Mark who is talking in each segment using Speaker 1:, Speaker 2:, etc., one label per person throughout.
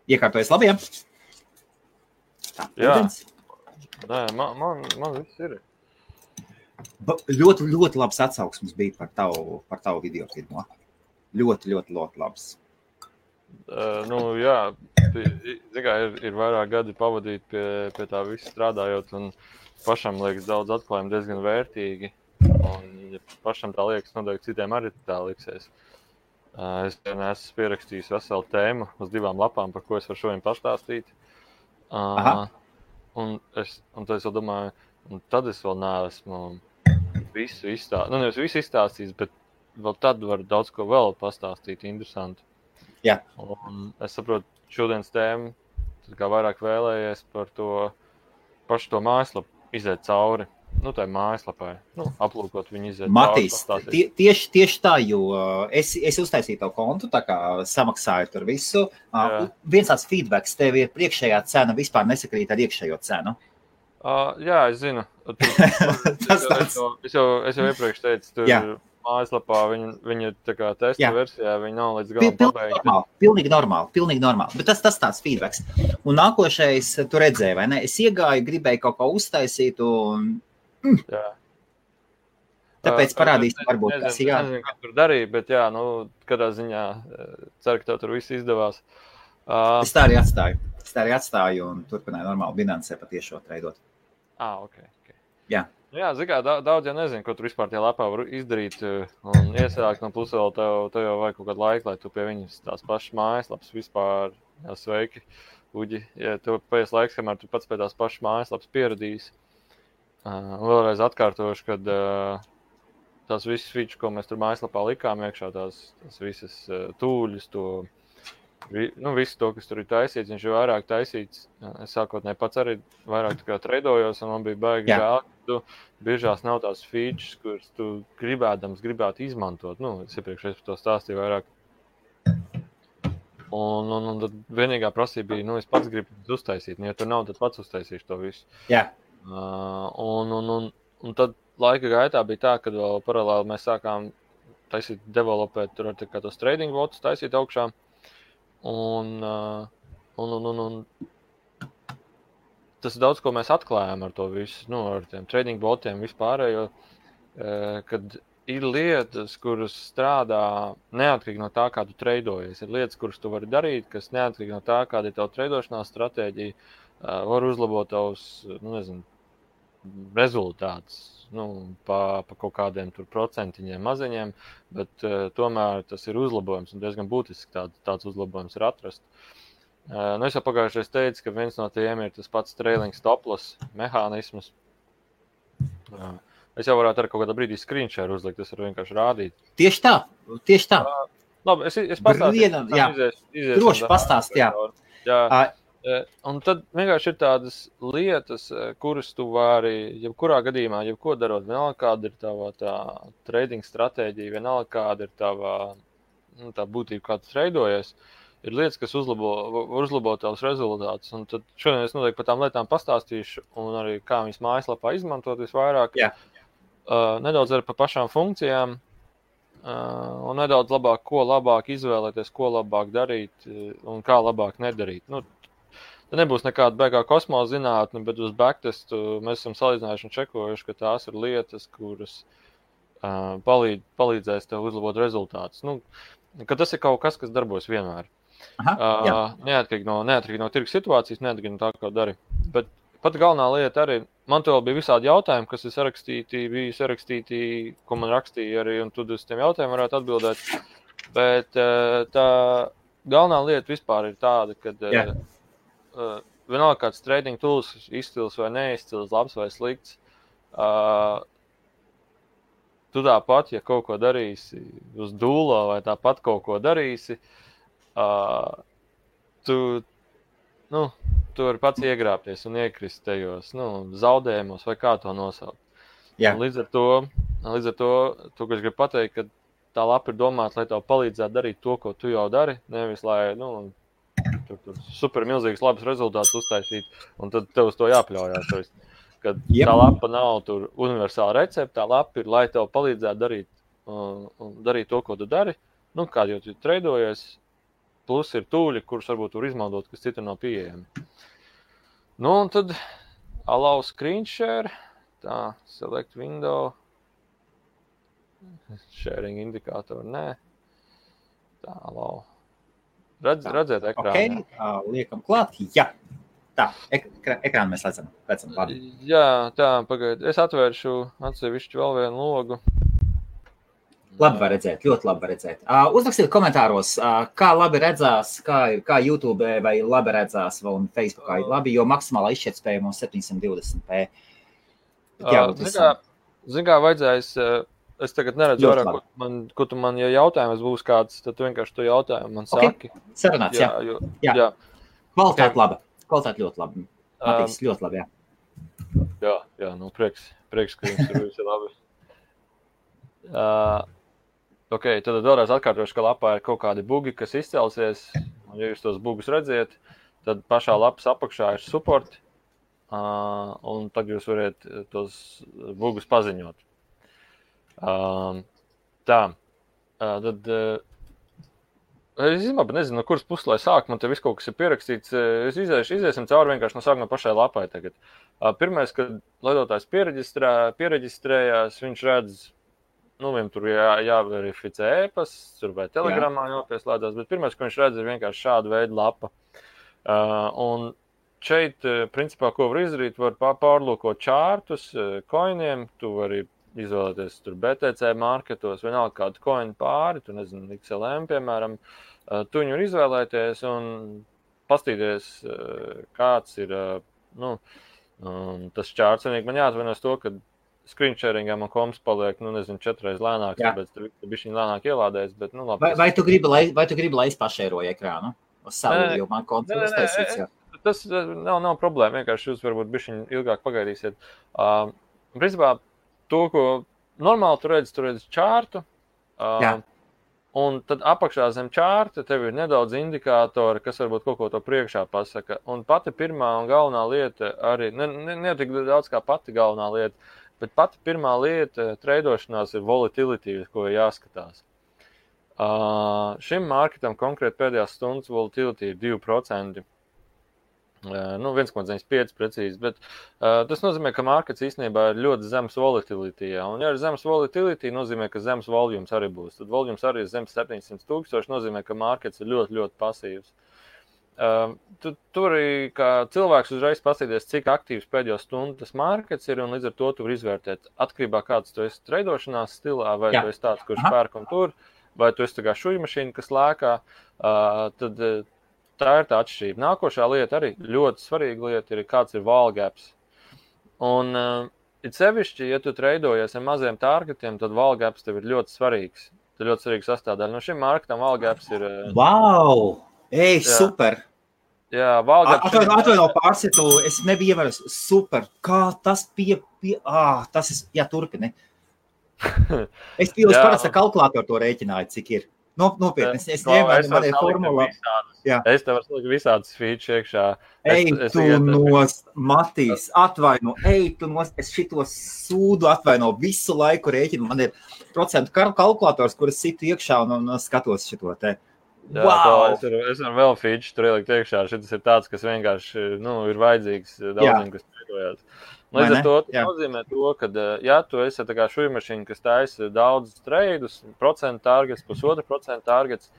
Speaker 1: Iekārtojies labi, ja? Tā, ūdens.
Speaker 2: Nē, man viss ir.
Speaker 1: Ļoti, ļoti labs atsauksmes bija par tavu video filmu. Ļoti, ļoti, ļoti labs.
Speaker 2: Jā, ir vairāk gadi pavadīt pie tā visa strādājot, un pašam liekas daudz atklājumu diezgan vērtīgi. Un, ja pašam tā liekas, noteikti citiem arī tā liksies. Es esmu pierakstījis veselu tēmu uz 2 lapām, par ko es varu šodien pastāstīt. Un tad es vēl domāju, un tad es vēl neesmu visu izstāstījis. Nevis visu izstāstījis, bet vēl tad var daudz ko vēl pastāstīt interesanti.
Speaker 1: Jā.
Speaker 2: Un es saprotu, šodienas tēmu, kā vairāk vēlējies par to pašu to mājaslapu iziet cauri. Tā ir mājaslapai. Aplūkot viņu iziet
Speaker 1: Matīs,
Speaker 2: cauri.
Speaker 1: Tieši tā, jo es uztaisīju tavu kontu, tā kā samaksāju tur visu. Viens tāds feedbacks, tev ir priekšējā cena vispār nesakrīt ar iekšējo cenu.
Speaker 2: Jā, es zinu. Es jau iepriekš teicu, tur mājaslapā viņa ir tā kā testa versijā, viņa nav līdz galam pabeigta.
Speaker 1: Pilnīgi normāli. Bet tas tāds feedbacks. Un nākošais, tu redzēji, vai ne? Es iegāju, gribēju kaut ko uztaisīt un...
Speaker 2: Jā.
Speaker 1: Tāpēc parādīsim, varbūt tas ir
Speaker 2: nezinu, ko tur darīja, bet kādā ziņā ceru, ka tev tur viss izdevās.
Speaker 1: Es tā arī atstāju un turpināju normāli Binance patiešo treidot.
Speaker 2: Ok.
Speaker 1: Jā.
Speaker 2: Jā, zikā, daudz jau nezinu, ko tur vispār tie lapā var izdarīt un iesākt, un plus vēl tev jau vajag kaut kādu laiku, lai tu pie viņas tās pašas mājaslapas vispār, sveiki, Uģi, ja tev paies laiks, kamēr tu pats pie tās pašas mājaslapas pieradīsi. Vēlreiz atkārtošu, kad tās visas features, ko mēs tur mājaslapā likām iekšā, tās visas tūļus, visu to, kas tur ir taisīts, viņš ir vairāk taisīts. Es sākotnēji pats arī vairāk tā kā treidojos, un man bija baigi žēl, ka tu biežās nav tās features, kuras tu gribētu izmantot. Es iepriekš par to stāstīju vairāk. Un tad vienīgā prasība bija, es pats gribu uztaisīt. Ja tur nav, tad pats uztaisīšu to visu.
Speaker 1: Jā.
Speaker 2: Un tad laika gaitā bija tā, kad vēl paralēli mēs sākām taisīt, developēt tur ar kā tos trading botus, taisīt augšā. Un tas daudz, ko mēs atklājām ar to visu, ar tiem trading botiem vispārējo, kad ir lietas, kuras strādā neatkarīgi no tā, kā tu treidojies. Ir lietas, kuras tu vari darīt, kas neatkarīgi no tā, kāda ir tava treidošanās stratēģija, var uzlabot tavus, rezultātus. Pa kaut kādiem tur procentiņiem maziņiem, bet tomēr tas ir uzlabojums un diezgan būtiski tāds uzlabojums ir atrast. Es jau pagājušais teicu, ka viens no tiem ir tas pats trailing stop-loss mehānisms. Es jau varētu ar kaut kādā brīdī screenshare uzlikt, tas var vienkārši rādīt.
Speaker 1: Tieši tā.
Speaker 2: Labi, es pastāstīšu.
Speaker 1: Droši pastāst, jā.
Speaker 2: Un tad vienkārši ir tādas lietas, kuras tu vari, jebkurā gadījumā, jebko darot, vienalga kāda ir tava tā trading stratēģija, vienalga kāda ir tava tā būtība, kā tu treidojies, ir lietas, kas uzlabo tavus rezultātus. Un tad šodien es noteikti par tām lietām pastāstīšu un arī kā viņas mājaslapā izmantot visvairāk.
Speaker 1: Jā.
Speaker 2: Nedaudz arī par pašām funkcijām un nedaudz ko labāk izvēlēties, ko labāk darīt un kā labāk nedarīt. Te nebūs nekāda beigā kosmosa zinātne, bet uz backtestu mēs esam salīdzinājuši un čekojuši, ka tās ir lietas, kuras palīdzēs tev uzlabot rezultātus. Ka tas ir kaut kas darbojas vienmēr. Neatkarīgi no tirgus situācijas, neatkarīgi no tā, ko dari. Bet pat galvenā lieta arī, man tev bija visādi jautājumi, kas bija sarakstīti, ko man rakstīja arī, un tu uz tiem jautājumiem varētu atbildēt. Bet tā galvenā lieta vispār ir tāda, kad vienalga kāds trading tools izcils vai neizcils, labs vai slikts, tu tāpat, ja kaut ko darīsi uz dūlo vai tāpat kaut ko darīsi, tu vari pats iegrāpties un iekrist tajos zaudējumos vai kā to nosaukt. Līdz ar to, ko es gribu pateikt, ka tā lapa ir domāta, lai tev palīdzētu darīt to, ko tu jau dari, nevis lai, tur super milzīgs labs rezultāts uztaisīt, un tad tev uz to jāpļaujās. Kad tā lapa nav tur universāla recepte, tā lapa ir, lai tev palīdzētu darīt to, ko tu dari, kādi jau tu treidojies, plus ir tūļi, kurus varbūt var izmantot, kas citur nav pieejami. Un tad allow screen share, tā, select window, sharing indikātoru, nē, tā, allow. Redzēt ekrānu.
Speaker 1: Liekam klāt, jā. Tā, ekrānu mēs redzam. Labi.
Speaker 2: Jā, tā, pagaid. Es atvēršu atsevišķu vēl vienu logu.
Speaker 1: Labi var redzēt, ļoti labi var redzēt. Uzrakstiet komentāros, kā labi redzās, kā YouTube vai labi redzās un Facebookā labi, jo maksimālā izšķirtspēja mums 720p.
Speaker 2: Zin kā vajadzēs, es tagad neredzu vairāk, ko tu man, ja jautājums būs kāds, tad tu vienkārši to jautājumu man saki.
Speaker 1: Sarunāts, jā. Kvalitāte laba. Kvalitāte ļoti labi. Matīgs ļoti labi, jā.
Speaker 2: Jā, prieks, ka jums tur viss ir labi. Ok, tad vēlreiz atkārtošu, ka lapā ir kaut kādi bugi, kas izcelsies, un ja jūs tos bugus redziet, tad pašā lapas apakšā ir support, un tad jūs varat tos bugus paziņot. Tad es nezinu, no kuras puses, lai sāk, man te viss kaut kas ir pierakstīts. Iziesim cauri vienkārši no sākuma pašai lapai tagad. Pirmais, kad lietotājs piereģistrējās, viņš redz, viņam tur jāverificē e-pasts, tur vai telegramā jāpieslēdzās, bet pirmais, ko viņš redz, ir vienkārši šāda veida lapa. Un šeit, principā, ko var izdarīt, var pārlūkot čārtus, koiniem, tu vari izvēlēties tur BTC marketos, vienalga kādu koinu pāri, tu nezinu, XLM, piemēram, tu viņu var izvēlēties un pastīties, kāds ir, tas čārts. Man jāatvainojas to, ka screen sharingā man komps paliek, 4 reiz lēnāks, tāpēc tur bišķiņ lēnāk ielādēs, bet, labi.
Speaker 1: Vai tu gribi, lai es pašēroju ekrānu? Uz savu, jo man konts uztaisīts, jā.
Speaker 2: Tas nav problēma, vienkārši jūs varbūt bišķiņ ilgāk pagaidīsiet. Principā, to, ko normāli tu redzi čārtu, un tad apakšā zem čārta tev ir nedaudz indikātori, kas varbūt kaut ko to priekšā pasaka. Un pati pirmā un galvenā lieta arī, ne tik daudz kā pati galvenā lieta, bet pati pirmā lieta treidošanās ir volatility, ko ir jāskatās. Šim marketam konkrēti pēdējās stundas volatility ir 2%. 1,95 precīzi, bet tas nozīmē, ka markets īstenībā ir ļoti zems volatility. Un, ja ir zems volatility, nozīmē, ka zems volumes arī būs. Tad volumes arī ir zems 700,000, nozīmē, ka markets ir ļoti, ļoti pasīvs. Tu arī kā cilvēks uzreiz pasīties, cik aktīvs pēdējo stundu tas markets ir, un līdz ar to tu var izvērtēt atkarībā, kāds tu esi treidošanās stilā, vai tu esi tāds, kurš pērk un tur, vai tu esi tā kā šuja mašīna, kas lēkā, tad tā ir tā atšķirība. Nākošā lieta arī ļoti svarīga lieta ir, kāds ir wall gaps. Un it sevišķi, ja tu treidojies ar maziem targetiem, tad wall gaps tev ir ļoti svarīgs. Tā ir ļoti svarīga sastāvdaļa. No šim marketam wall gaps ir...
Speaker 1: Wow! Ej, super!
Speaker 2: Jā, wall gaps...
Speaker 1: Atvaino pārsitu, es nebiju ievērus. Super! Kā tas tas ir... Jā, turpini. Es parasti kalkulātoru to rēķināju, cik ir. Nopietni, es ņēmu, man ir formula.
Speaker 2: Es tev varu salikt visādas feature iekšā.
Speaker 1: Matīs, atvaino, es šito sūdu atvaino visu laiku rēķinu. Man ir procentu kalkulators, kuras situ iekšā un skatos šito te.
Speaker 2: Wow! Es varu vēl feature tur ielikt iekšā. Šitas ir tāds, kas vienkārši ir vajadzīgs daudziem, kas treitojās. Līdz ar to nozīmē to, ka, ja tu esi tā kā šuja mašīna, kas taisa daudz treidus, procentu targets, 1,5% targets,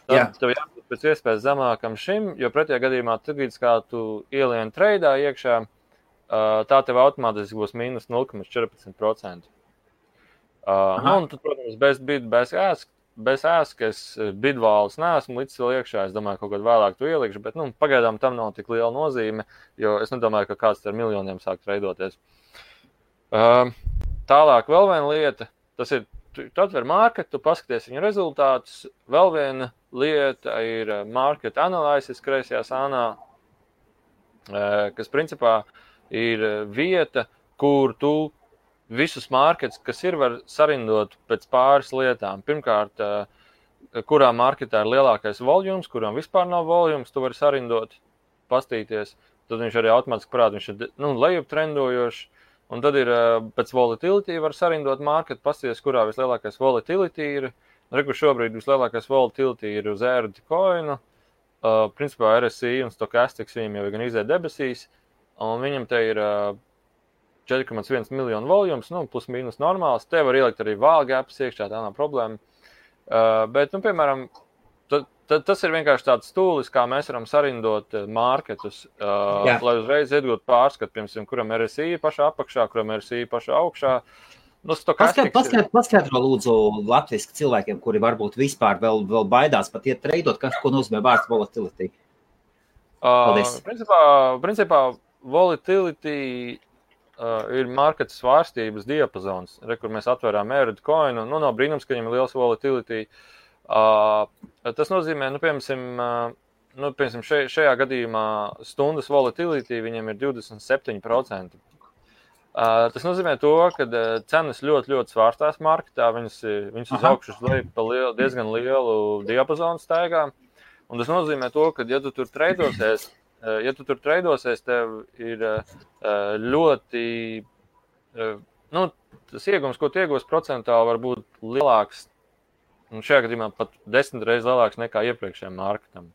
Speaker 2: tad tev jābūt pēc iespējas zemākam šim, jo pretējā gadījumā, tad, kā tu ielien treidā iekšā, tā tev automātiski būs mīnus 0,14%. Un tad, protams, bez bid, bez ask, es bidvālis neesmu līdz vēl iekšā, es domāju, kaut kādā vēlāk tu ielikšu, bet, pagaidām tam nav tik liela nozīme, jo es nedomāju, ka kāds ar miljoniem sāk treidoties. Tālāk vēl viena lieta, tas ir, tu atver marketu, tu paskaties viņu rezultātus, vēl viena lieta ir market analysis kreisajā sānā, kas principā ir vieta, kur tu visus markets, kas ir, var sarindot pēc pāris lietām. Pirmkārt, kurā marketā ir lielākais volumes, kuram vispār nav volumes, tu vari sarindot, pastīties. Tad viņš arī automātiski parāda, viņš ir lejup trendojošs. Un tad ir pēc volatility var sarindot marketu, pastīties, kurā vislielākais volatility ir. Rekur šobrīd vislielākais volatility ir uz ERD coinu. Principā RSI un Stochastics viņam jau gan izēja debesīs, un viņam te ir 4,1 miljonu volums, plus mīnus normāls. Te var ielikt arī vālgāpas iekšā, tā nav problēma. Bet, piemēram, tas ir vienkārši tāds stūlis, kā mēs varam sarindot marketus, lai uzreiz iegūtu pārskatu, piemēram, kuram RSI pašā apakšā, kuram RSI pašā augšā.
Speaker 1: Paskaidro lūdzu latviski cilvēkiem, kuri varbūt vispār vēl baidās pat iet treidot, ko nozīmē vārds volatility. Paldies.
Speaker 2: Principā volatility ir marketa svārstības diapazons, kur mēs atvērām ERD coinu. Nav brīnums, ka viņam ir liels volatility. Tas nozīmē, piemēram, šajā gadījumā stundas volatility viņam ir 27%. Tas nozīmē to, ka cenas ļoti, ļoti svārstās marketā, viņas uz augšu uz leju pa diezgan lielu diapazonu staigā. Un tas nozīmē to, ka, ja tu tur treidosies, tev ir ļoti, tas iegums, ko tu iegūsi procentāli, var būt lielāks, un šajā gadījumā pat 10 reizes lielāks nekā iepriekšējiem marketam.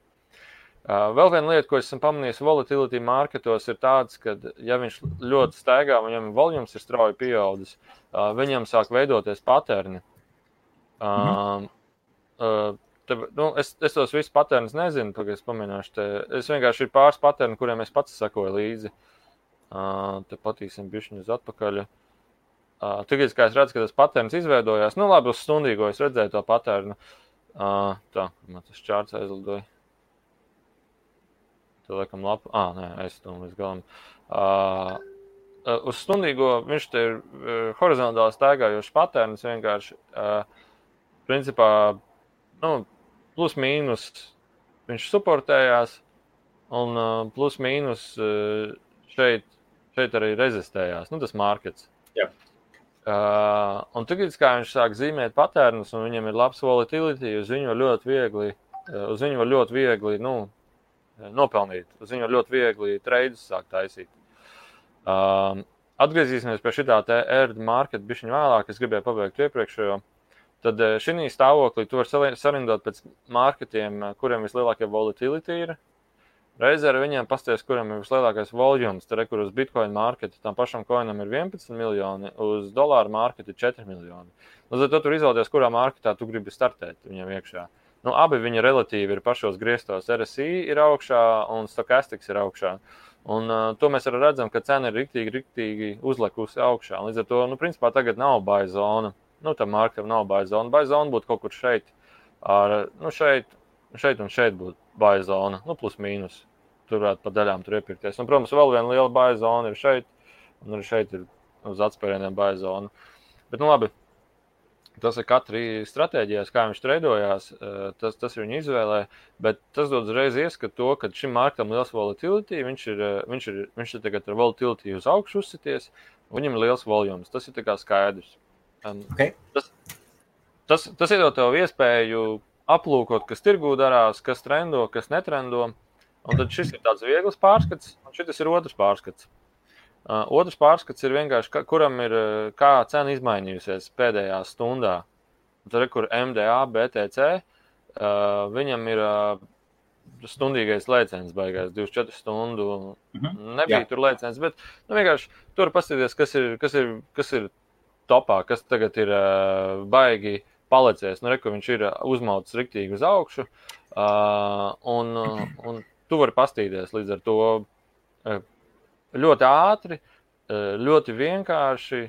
Speaker 2: Vēl viena lieta, ko esmu pamanījis volatility marketos, ir tāds, ka, ja viņš ļoti staigā, viņam volums ir strauji pieaudzis, viņam sāk veidoties paterni. Es tos visus paternus nezinu, tagad es paminēšu te. Es vienkārši ir pāris paterni, kuriem es pats sakoju līdzi. Te patīsim bišķiņu uz atpakaļ. Tagad, kā es redzu, ka tas paterns izveidojās, labi, uz stundīgo es redzēju to paternu. Tā, man tas čārts aizlidoja. Te liekam lapu. Nē, aizstum līdz galam. Uz stundīgo viņš te ir horizontāli staigājošs paterns vienkārši. Principā, plus mīnus viņš suportējās un plus mīnus šeit arī rezistējās. Tas markets.
Speaker 1: Jā.
Speaker 2: Un tagad, kā viņš sāk zīmēt paternus un viņam ir labs volatility, uz viņu var ļoti viegli, nopelnīt. Uz viņu ļoti viegli treidus sāk taisīt. Atgriezīsimies pie šitā te ERD market bišķiņ vēlāk, es gribēju pabeigt iepriekšējo. Tad šī stāvoklī tu var sarindot pēc marketiem, kuriem vislielākie volatility ir. Reizē ar viņiem pasties, kuriem ir vislielākais volumes. Tad, kur uz Bitcoin marketu tam pašam coinam ir 11 miljoni, uz dolāru marketu ir 4 miljoni. Tad tu tur izvēlēties, kurā marketā tu gribi startēt viņam iekšā. Abi viņi relatīvi ir pašos griestos. RSI ir augšā un Stochastics ir augšā. Un to mēs arī redzam, ka cena ir riktīgi uzlekusi augšā. Līdz ar to, principā tagad nav buy zona. Tam marketam nav buy zona. Buy zona būtu kaut kur šeit. Šeit un šeit būtu buy zona. Plus mīnus. Tur varētu pa daļām tur iepirkties. Un, protams, vēl viena liela buy zona ir šeit. Un arī šeit ir uz atspērieniem buy zona. Bet, labi. Tas ir katrai stratēģijās, kā viņš treidojās, tas ir viņa izvēlē, bet tas dod uzreiz ieskatu to, ka šim marketam liels volatility, viņš ir tagad ar volatility uz augšu uzsities, un viņam ir liels volums. Tas ir tā kā skaidrs.
Speaker 1: Okay.
Speaker 2: Tas iedod tev iespēju aplūkot, kas tirgū darās, kas trendo, kas netrendo, un tad šis ir tāds viegls pārskats, un šis ir otrs pārskats. Otrs pārskats ir vienkārši, kuram ir kā cena izmainījusies pēdējā stundā. Tad, kur MDA, BTC, viņam ir stundīgais lēciens baigās, 24 stundu. Nebija tur lēciens, bet vienkārši tur paskatīties, kas ir topā, kas tagad ir baigi palicies. Kur viņš ir uzmauts riktīgi uz augšu, un tu vari pastīties līdz ar to ļoti ātri, ļoti vienkārši,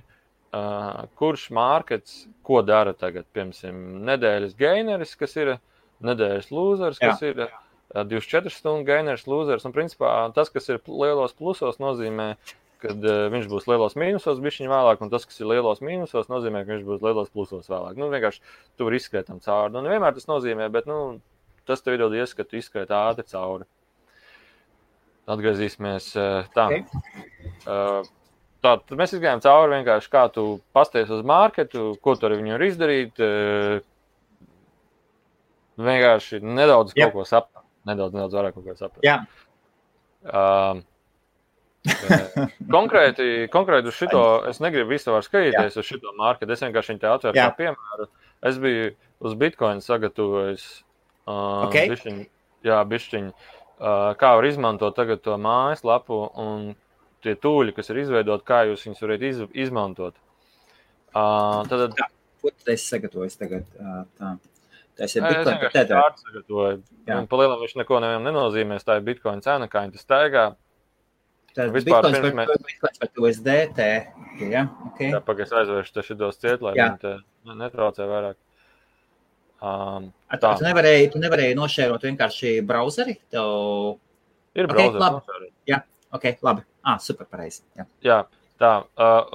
Speaker 2: kurš markets ko dara tagad. Piemēram, nedēļas gaineris, kas ir nedēļas lūzers, kas ir 24 stundu gaineris, lūzers. Un principā tas, kas ir lielos plusos, nozīmē, kad viņš būs lielos mīnusos bišķiņ vēlāk, un tas, kas ir lielos mīnusos, nozīmē, ka viņš būs lielos plusos vēlāk. Vienkārši tu vari izskriet tam cauri. Nevienmēr tas nozīmē, bet tas tev iedod ieskatu izskriet ātri cauri. Atgriezīsimies tā. Tad mēs izgājām cauri vienkārši, kā tu pasties uz marketu, ko tu ar viņu var izdarīt. Vienkārši nedaudz kaut ko saprast. Nedaudz vairāk kaut ko saprast.
Speaker 1: Jā.
Speaker 2: Konkrēti uz šito, es negribu visu var skatīties uz šito marketu. Es vienkārši viņu te atveru kā piemēru. Es biju uz Bitcoin sagatavojis bišķiņu, kā var izmantot tagad to mājaslapu un tie tūļi, kas ir izveidot, kā jūs viņus varat izmantot. Tad...
Speaker 1: Ko tu esi sagatavojis tagad? Tas ir
Speaker 2: Es
Speaker 1: Bitcoin par
Speaker 2: vienkārši
Speaker 1: Tether.
Speaker 2: tādu sagatavoju. Pa lielam viņš neko nevienam nenozīmēs, tā ir Bitcoin cena, kā viņi tas staigā.
Speaker 1: Tad
Speaker 2: Vispār
Speaker 1: Bitcoins par USDT. Ja? Okay.
Speaker 2: Jā, pagaidz aizvēršu te šitos ciet, lai viņi te netraucē vairāk.
Speaker 1: Tu nevarēji nošērot vienkārši brauzeri?
Speaker 2: Ir brauzeri nošērot.
Speaker 1: Jā, ok, labi. Super, pareizi.
Speaker 2: Jā, tā.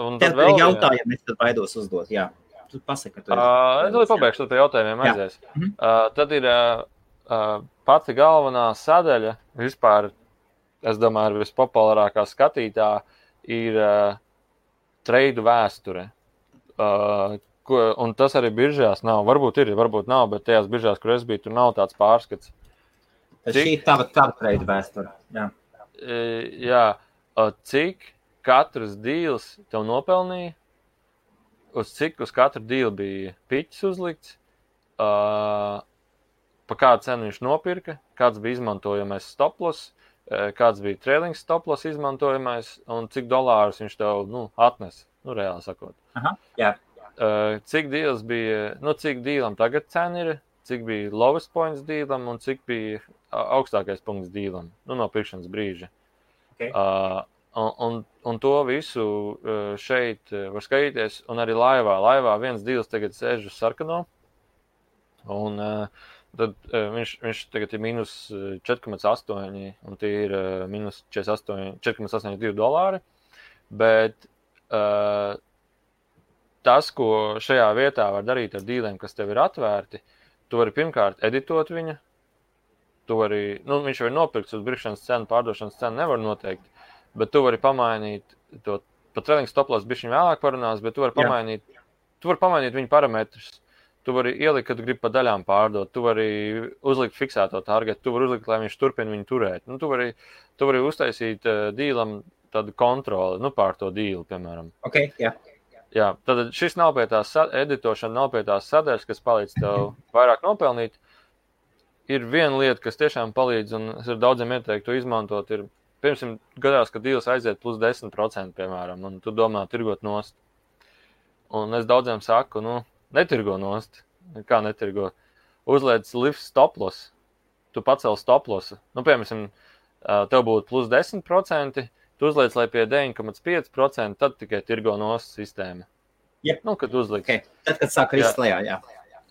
Speaker 2: Un
Speaker 1: tad vēl jautājumu es tad baidos uzdot, jā. Tu pasaki, ka tu
Speaker 2: es vēl pabeigšu, tad pie jautājumiem aizies. Tad ir pati galvenā sadaļa vispār, es domāju, vispopulārākā skatītā ir treidu vēsture. Un tas arī biržās nav. Varbūt ir, varbūt nav, bet tajās biržās, kur es biju, tur nav tāds pārskats.
Speaker 1: Šī ir tava treidu vēsture.
Speaker 2: Jā. Cik katrs dīls tev nopelnīja, uz katru dīlu bija piķis uzlikts, pa kādu cenu viņš nopirka, kāds bija izmantojamais stoploss, kāds bija trailing stoploss izmantojamais un cik dolārus viņš tev atnes, reāli sakot.
Speaker 1: Aha, jā.
Speaker 2: Cik dīls bija, cik dīlam tagad cena ir, cik bija lowest points dīlam un cik bija augstākais punkts dīlam, no pirkšanas brīža.
Speaker 1: Okay.
Speaker 2: Un to visu šeit var skatīties, un arī laivā. Laivā viens dīls tagad sēž uz sarkano, un tad viņš tagad ir minus 4,8, un tie ir minus 4,82 dolāri, bet tas, ko šajā vietā var darīt ar dīliem, kas tev ir atvērti, tu vari pirmkārt editot viņu, tu vari, viņš jau ir nopirkts uz birkšanas cenu, pārdošanas cenu nevar noteikt, bet tu vari pamainīt to, pat trailing stoploss bišķiņ vēlāk parunās, bet tu vari pamainīt viņu parametrus. Tu vari ielikt, kad gribi pa daļām pārdot, tu vari uzlikt fiksēto targetu, tu vari uzlikt, lai viņš turpina viņu turēt. Tu vari uztaisīt dīlam tādu kontroli, pār to dīlu, piemēram.
Speaker 1: Ok, jā.
Speaker 2: Jā, tad šis nav pie tās editošana, nav pie tās sadaļas, kas palīdz tev vairāk nopelnīt. Ir viena lieta, kas tiešām palīdz, un es ar daudziem ieteiktu to izmantot, ir, pirmsim, gadās, ka dīls aiziet plus 10%, piemēram, un tu domā tirgot nost. Un es daudziem saku, netirgo nost. Kā netirgo? Uzliec lift stoploss. Tu pacel stoplosu. Piemēram, tev būtu plus 10%, tu uzliec, lai pie 9,5%, tad tikai tirgo nost sistēma.
Speaker 1: Yep.
Speaker 2: Kad uzliks.
Speaker 1: Okay. Tad, kad sāk krist lejā, jā.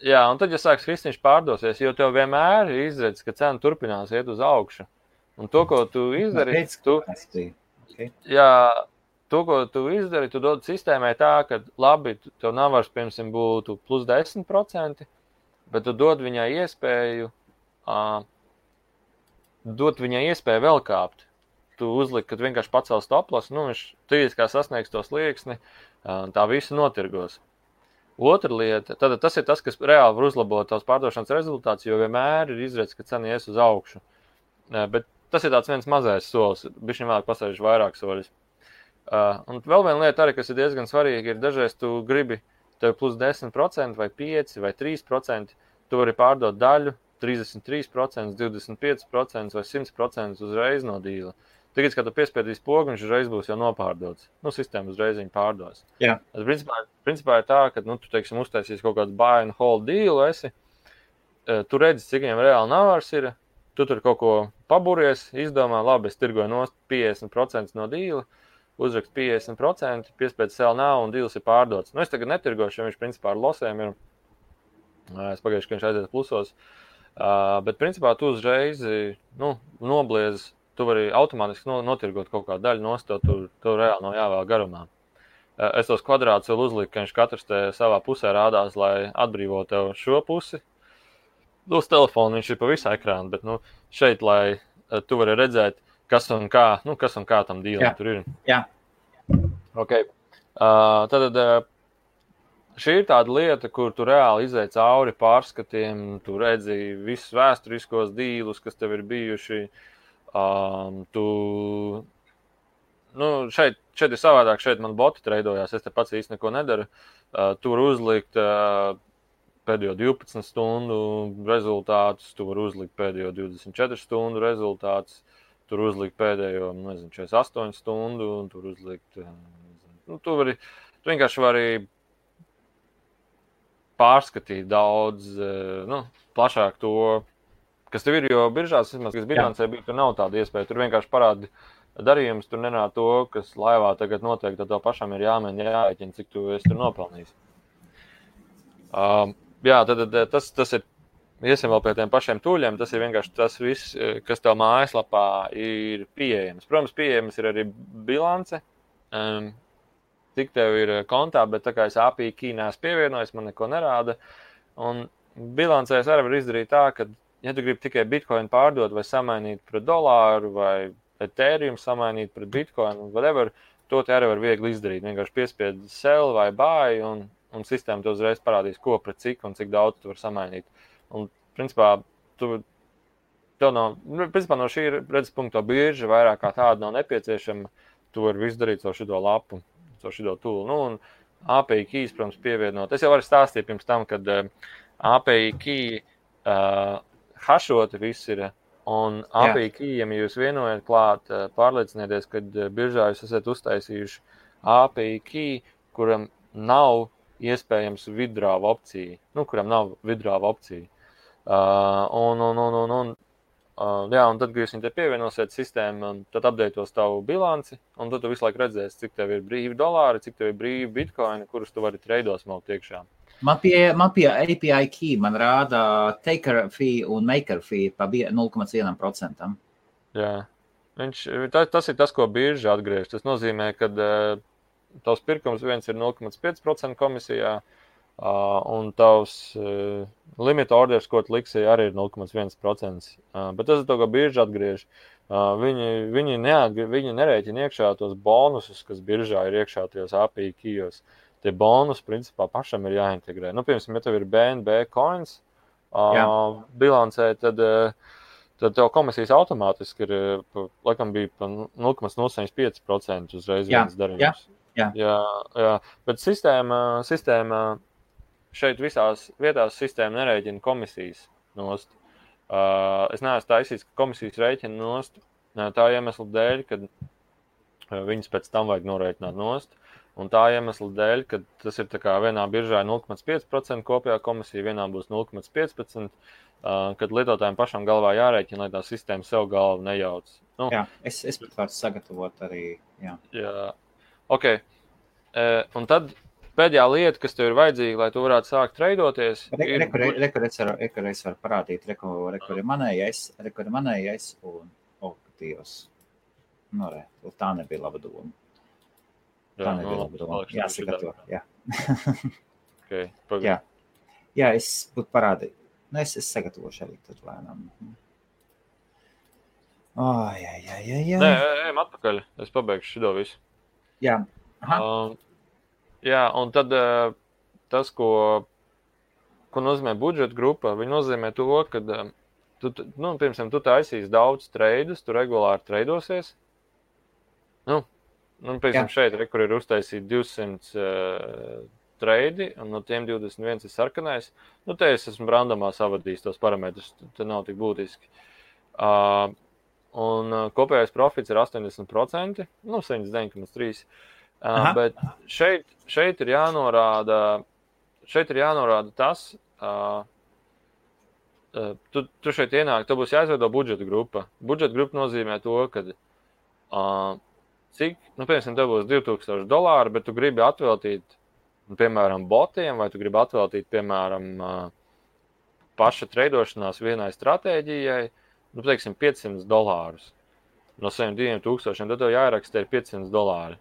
Speaker 2: Jā, un tad, ja sāks krist, viņš pārdosies, jo tev vienmēr ir izredz, ka cena turpinās iet uz augšu. Un to, ko tu izdari, tu dod sistēmai tā, ka labi, tev nav vairs, piemēram, būtu plus 10%, bet tu dod viņai iespēju vēl kāpt. Tu uzliki, kad vienkārši pacēl stoploss, viņš trīs kā sasniegs to slieksni, tā visu notirgos. Otra lieta, tad tas ir tas, kas reāli var uzlabot tavs pārdošanas rezultāts, jo vienmēr ir izredz, ka cena ies uz augšu. Bet tas ir tāds viens mazais solis, bišķiņ vēlāk pasēžu vairāk soļus. Un vēl viena lieta arī, kas ir diezgan svarīga, ir dažreiz tu gribi tev plus 10% vai 5% vai 3%, tu vari pārdot daļu, 33%, 25% vai 100% uzreiz no dīla. Tagad, kad tu piespiedīs pogu, viņš uzreiz būs jau nopārdots. Sistēma uzreiz viņu pārdos.
Speaker 1: Jā.
Speaker 2: Principā ir tā, ka, tu, teiksim, uztaisīs kaut kādu buy and hold dealu, tu redzi, cik viņam reāli navars ir, tu tur kaut ko paburies, izdomā, labi, es tirgoju nost 50% no dīla, uzrakst 50%, piespiedz sell now un dīls ir pārdots. Es tagad netirgošu, jo viņš principā ar losēm ir, es pagājuši, ka viņš aiziet plusos, bet principā tu uzreiz, nobliez. Tu vari automātiski notirgot kaut kādu daļu nost, tu reāli nav jāvēl garumā. Es tos kvadrātus vēl uzliku, ka viņš katrs te savā pusē rādās, lai atbrīvo tev šo pusi. Uz telefonu viņš ir pa visu ekrānu, bet šeit, lai tu vari redzēt, kas un kā tam dīlam tur ir.
Speaker 1: Jā.
Speaker 2: Ok. Tad šī ir tāda lieta, kur tu reāli izej cauri pārskatiem, tu redzi visus vēsturiskos dīlus, kas tev ir bijuši. Šeit ir savādāk, šeit man boti treidojās, es te pats īsti neko nedaru. Tur uzlikt pēdējo 12 stundu rezultātus, tu vari uzlikt pēdējo 24 stundu rezultātus, tur uzlikt pēdējo, 48 stundu, un tur uzlikt, tu vienkārši vari pārskatīt daudz, plašāk to, kas tev ir, jo biržās, vismaz, kas bilancē bija, tur nav tāda iespēja, tur vienkārši parādi darījums, tur nenāk to, kas laivā tagad notiek, tad tev pašam ir jāmēģina jāēķina, cik tu esi tur nopelnījis. Tad tas ir, iesim vēl pie tiem pašiem tūļiem, tas ir vienkārši tas viss, kas tev mājaslapā ir pieejams. Protams, pieejams ir arī bilance, cik tev ir kontā, bet tā kā es API key neesmu pievienojis, man neko nerāda. Un bilancēs arī var izdarīt tā, ka, ja tu gribi tikai Bitcoin pārdot vai samainīt pret dolāru vai Ethereum samainīt pret Bitcoin, whatever, to te arī var viegli izdarīt. Vienkārši piespied sell vai buy un sistēma tev uzreiz parādīs, ko pret cik un cik daudz tu var samainīt. Un, principā, no šī redzes punkta birža vairāk kā tāda nav nepieciešama, tu vari visu darīt caur šito lapu, caur šito tūlu. Un API keys, protams, pievienot. Es jau varu stāstīt pirms tam, kad API key hašoti viss ir, un API keyiem, ja jūs vienojat klāt, pārliecinieties, kad biržā jūs esat uztaisījuši API key, kuram nav iespējams withdraw opcija. Kuram nav withdraw opcija. Un tad, kad jūs viņu te pievienosiet sistēmu, tad updateos tavu bilanci, un tad tu visu laiku redzēsi, cik tev ir brīvi dolāri, cik tev ir brīvi bitcoini, kurus tu vari treidos malt iekšā.
Speaker 1: Man pie API key man rāda taker fee un maker fee pa 0,1%.
Speaker 2: Jā. Tas ir tas, ko birža atgriež. Tas nozīmē, ka tavs pirkums viens ir 0,5% komisijā, un tavs limit orders, ko tu liksi, arī ir 0,1%. Bet tas ir to, ko birža atgriež. Viņi nerēķina iekšā tos bonusus, kas biržā ir iekšā tajos API keyos. Tie bonus, principā, pašam ir jāintegrē. Piemēram, ja tev ir BNB coins bilancē, tad tev komisijas automātiski ir, laikam bija pa 0,05% uzreiz viens darījums. Jā. Bet sistēma šeit visās vietās sistēma nerēķina komisijas nost. Es neesmu taisījis, ka komisijas rēķina nost tā iemesla dēļ, kad viņas pēc tam vajag norēķināt nost. Un tā iemesla dēļ, ka tas ir tā kā vienā biržā 0,5% kopējā komisija, vienā būs 0,15%, kad lietotājiem pašam galvā jārēķina, lai tā sistēma sev galvu nejauc.
Speaker 1: Jā, es pat varu sagatavot arī.
Speaker 2: Jā. Ok. Un tad pēdējā lieta, kas tev ir vajadzīga, lai tu varētu sākt treidoties,
Speaker 1: Rekur es varu parādīt, rekur ir manējais un Dievs. Tā nebija laba doma. Jāsagatavo, jā.
Speaker 2: Okay,
Speaker 1: jā, es būtu parādīju. Es sagatavošu arī tad lēnām. Jā.
Speaker 2: Nē, ejam atpakaļ. Es pabeigšu šito visu.
Speaker 1: Jā.
Speaker 2: Un tad tas, ko nozīmē budžeta grupa, viņi nozīmē to, ka piemēram, tu taisīs daudz treidus, tu regulāri treidosies. Piemēram, šeit, kur ir uztaisīt 200 treidi, un no tiem 21 ir sarkanais. Te es esmu randomā savadījis tos parametrus, te nav tik būtiski. Un kopējais profits ir 80%, 79,3%. Bet šeit ir jānorāda tas, tu šeit ienāk, tev būs jāizveido budžeta grupa. Budžeta grupa nozīmē to, ka cik, piemēram, tev būs $2000, bet tu gribi atveltīt, piemēram, botiem, vai tu gribi atveltīt, piemēram, paša treidošanās vienai stratēģijai, teiksim, $500. No saviem 2000, tad tev jāierakstē $500.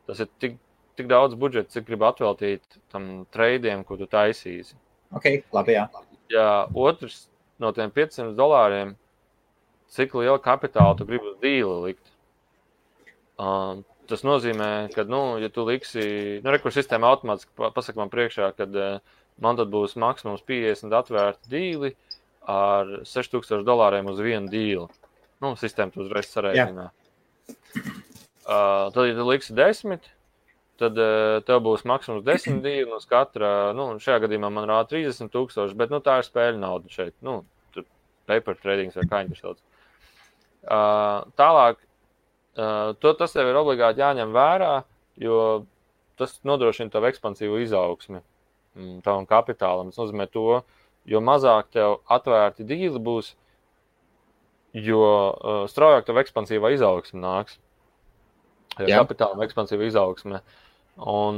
Speaker 2: Tas ir tik daudz budžeta, cik gribi atveltīt tam treidiem, ko tu taisīsi.
Speaker 1: Ok, labi, jā.
Speaker 2: Jā, otrs no tiem $500, cik liela kapitāla tu gribi uz dīli likt. Tas nozīmē, ka, ja tu liksi, rekur sistēma automātiski pasaka man priekšā, kad man tad būs maksimums 50 atvērti dīli ar $6000 uz vienu dīli. Sistēma tu uzreiz sarēķinā. Tad, ja tu liksi 10, tad tev būs maksimums 10 dīli, uz katra, šajā gadījumā man rāda 30,000, bet, tā ir spēļu nauda šeit, tur paper tradings vai kā viņi tur sauc. Tālāk, tas tev ir obligāti jāņem vērā, jo tas nodrošina tavu ekspansīvu izaugsmi tavam kapitālam. Tas nozīmē to, jo mazāk tev atvērti dīli būs, jo straujāk tev ekspansīvā izaugsme nāks. Kapitāla ekspansīva izaugsme. Un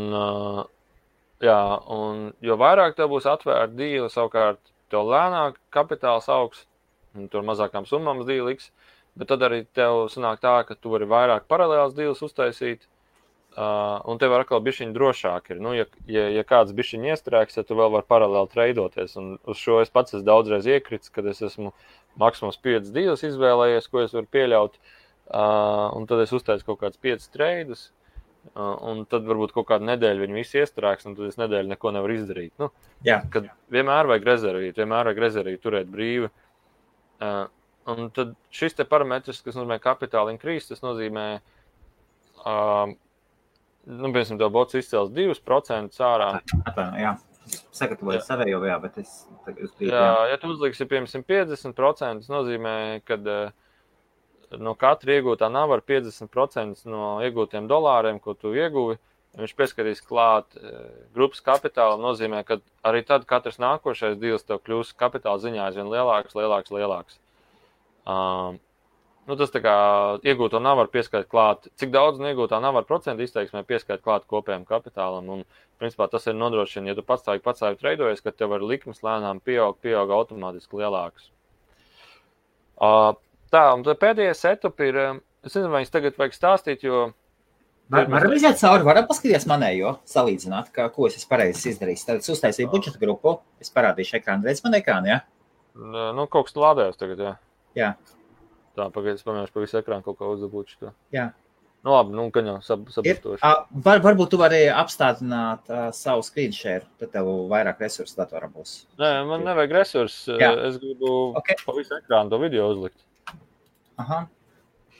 Speaker 2: jo vairāk tev būs atvērti dīli, savukārt tev lēnāk kapitāls augs, un tur mazākām summām dīliks, bet tad arī tev sanāk tā, ka tu vari vairāk paralēlas dīles uztaisīt, un tev atkal bišķiņi drošāk ir. Ja kāds bišķiņi iestrēgs, tad tu vēl vari paralēli treidoties, un uz šo es pats esmu daudzreiz iekrits, kad es esmu maksimums 5 dīles izvēlējies, ko es varu pieļaut, un tad es uztaisu kaut kāds 5 treidus, un tad varbūt kaut kādu nedēļu viņi visi iestrēgs, un tad es nedēļu neko nevaru izdarīt. Kad vienmēr vajag rezervīt, turēt brīvi. Un tad šis te parametrs, kas nozīmē kapitāla increase, tas nozīmē, piemēram, tev bots izcēls 2% ārā.
Speaker 1: Jā, sagatavoju savējo, bet es tagad uzkrītu.
Speaker 2: Ja tu uzliksi, piemēram, 50%, tas nozīmē, kad no katra iegūtā navara 50% no iegūtiem dolāriem, ko tu ieguvi, viņš pieskatīs klāt grupas kapitāla, nozīmē, ka arī tad katrs nākošais dīls tev kļūs kapitāla ziņā aizvien lielāks. Tas tā kā iegūto navaru pieskait klāt, cik daudz no iegūtā navaru procentu izteiksmē pieskait klāt kopējam kapitālam, un principā tas ir nodrošina, ja tu patstāvīgi treidojies, ka tev ar likmes lēnām pieaug automātiski lielāks. Un pēdējais setup ir, es nezinu, vai es tagad vajag stāstīt, jo...
Speaker 1: Varam iziet cauri, varam paskatīties manējo, salīdzināt, ko es pareizi izdarīju. Tad es uztaisīju budžeta grupu, es parādīšu ekrānu, redz man ekrānu, jā?
Speaker 2: Kaut kas lādējos tagad, jā.
Speaker 1: Jā.
Speaker 2: Tā, pagaid, es pamēģināšu pa visu ekrānu kaut kā uzdabūt šo.
Speaker 1: Jā.
Speaker 2: Labi, gan jau sabustoši.
Speaker 1: Varbūt tu vari apstādināt savu screen share, tad tev vairāk resursu datorā būs.
Speaker 2: Nē, man nevajag resursu, es gribu pa visu ekrānu to video uzlikt.
Speaker 1: Aha.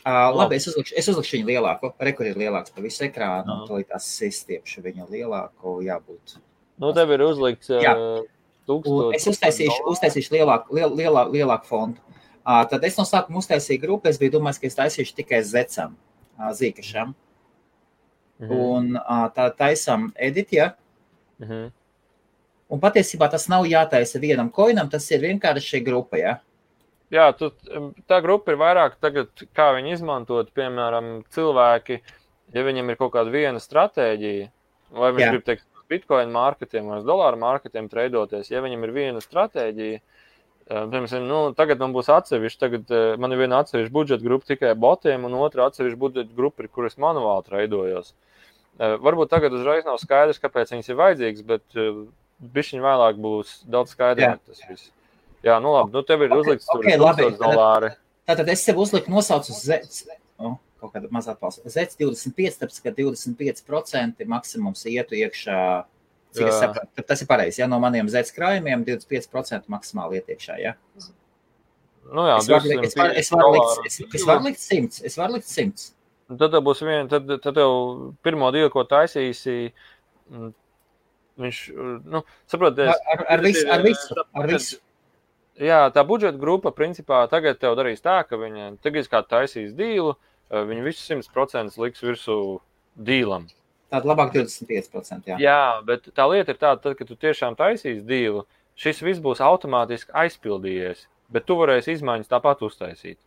Speaker 1: Labi, es uzlikšu viņu lielāku, kur ir lielāks pa visu ekrānu, un tad tās stiepšu viņu lielāku, jābūt.
Speaker 2: Tev ir uzlikts 1000.
Speaker 1: Es uztaisīšu lielāku fontu. Tad es no sākuma uztaisīju grupu, es biju domājis, ka es taisīšu tikai zecam, zīkašam. Un tā taisam edit, ja? Un patiesībā tas nav jātaisa vienam coinam, tas ir vienkārši grupa, ja?
Speaker 2: Jā, tā grupa ir vairāk tagad, kā viņi izmantot, piemēram, cilvēki, ja viņam ir kaut kāda viena stratēģija, vai viņš grib teikt bitcoin marketiem vai dolāru marketiem treidoties, ja viņam ir viena stratēģija, piemēram, tagad man būs atsevišķi, tagad man ir viena atsevišķa budžeta grupa tikai botiem un otra atsevišķa budžeta grupa, kur es manuāli treidojos. Varbūt tagad uzreiz nav skaidrs, kāpēc viņas ir vajadzīgas, bet bišķiņ vēlāk būs daudz skaidrāk tas viss. Jā, labi, tev ir uzlikts tur $1000.
Speaker 1: Tātad es sev uzliku nosaucu kaut kāda mazā atbalsta. Zets 25, tāpēc, ka 25% maksimums ietu iekšā, cik es sapratu. Tas ir pareizi, ja no maniem zets krājumiem 25% maksimāli iet iekšā, ja?
Speaker 2: Jā,
Speaker 1: es varu likt 100. Es varu likt 100.
Speaker 2: Tad tev būs tad tev pirmo dīlu, ko taisīsi, viņš, saproties...
Speaker 1: Ar visu.
Speaker 2: Jā, tā budžeta grupa, principā, tagad tev darīs tā, ka viņi tagad kā taisīs dīlu, viņi visu 100% liks virsū dīlam.
Speaker 1: Tāda labāk 25%, jā.
Speaker 2: Jā, bet tā lieta ir tāda, tad, kad tu tiešām taisīs dīlu, šis viss būs automātiski aizpildījies, bet tu varēsi izmaiņas tāpat uztaisīt.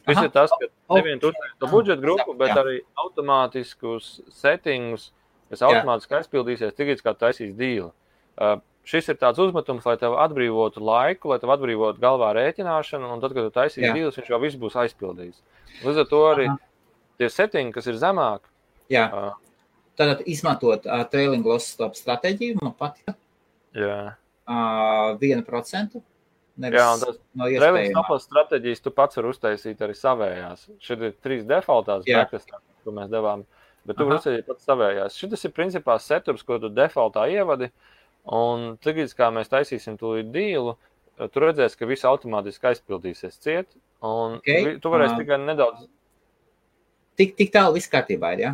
Speaker 2: Viss ir tas, ka nevien tu uztaisīs to budžeta grupu, bet arī automātiskus settingus, kas automātiski aizpildīsies, tagad kā taisīs dīlu. Šis ir tāds uzmetums, lai tev atbrīvotu laiku, lai tev atbrīvotu galvā rēķināšanu, un tad, kad tu taisīs dīlus, viņš jau viss būs aizpildījis. Līdz ar to arī tie settingi, kas ir zemāk.
Speaker 1: Jā, tad izmantot trailing loss stop stratēģiju, man patika.
Speaker 2: Jā.
Speaker 1: 1%.
Speaker 2: Jā, un tas trailing stop loss stratēģijas tu pats var uztaisīt arī savējās. Šeit ir 3 defaultās backtestā, ko mēs devām, bet tu var uztaisīt pats savējās. Šitas ir principā setups, ko tu defaultā ievadi. Un tagad, kā mēs taisīsim tūlīt dīlu, tu redzēsi, ka viss automātiski aizpildīsies ciet, un tu varēsi tikai nedaudz...
Speaker 1: Tik tālu viss kārtībā ir, jā?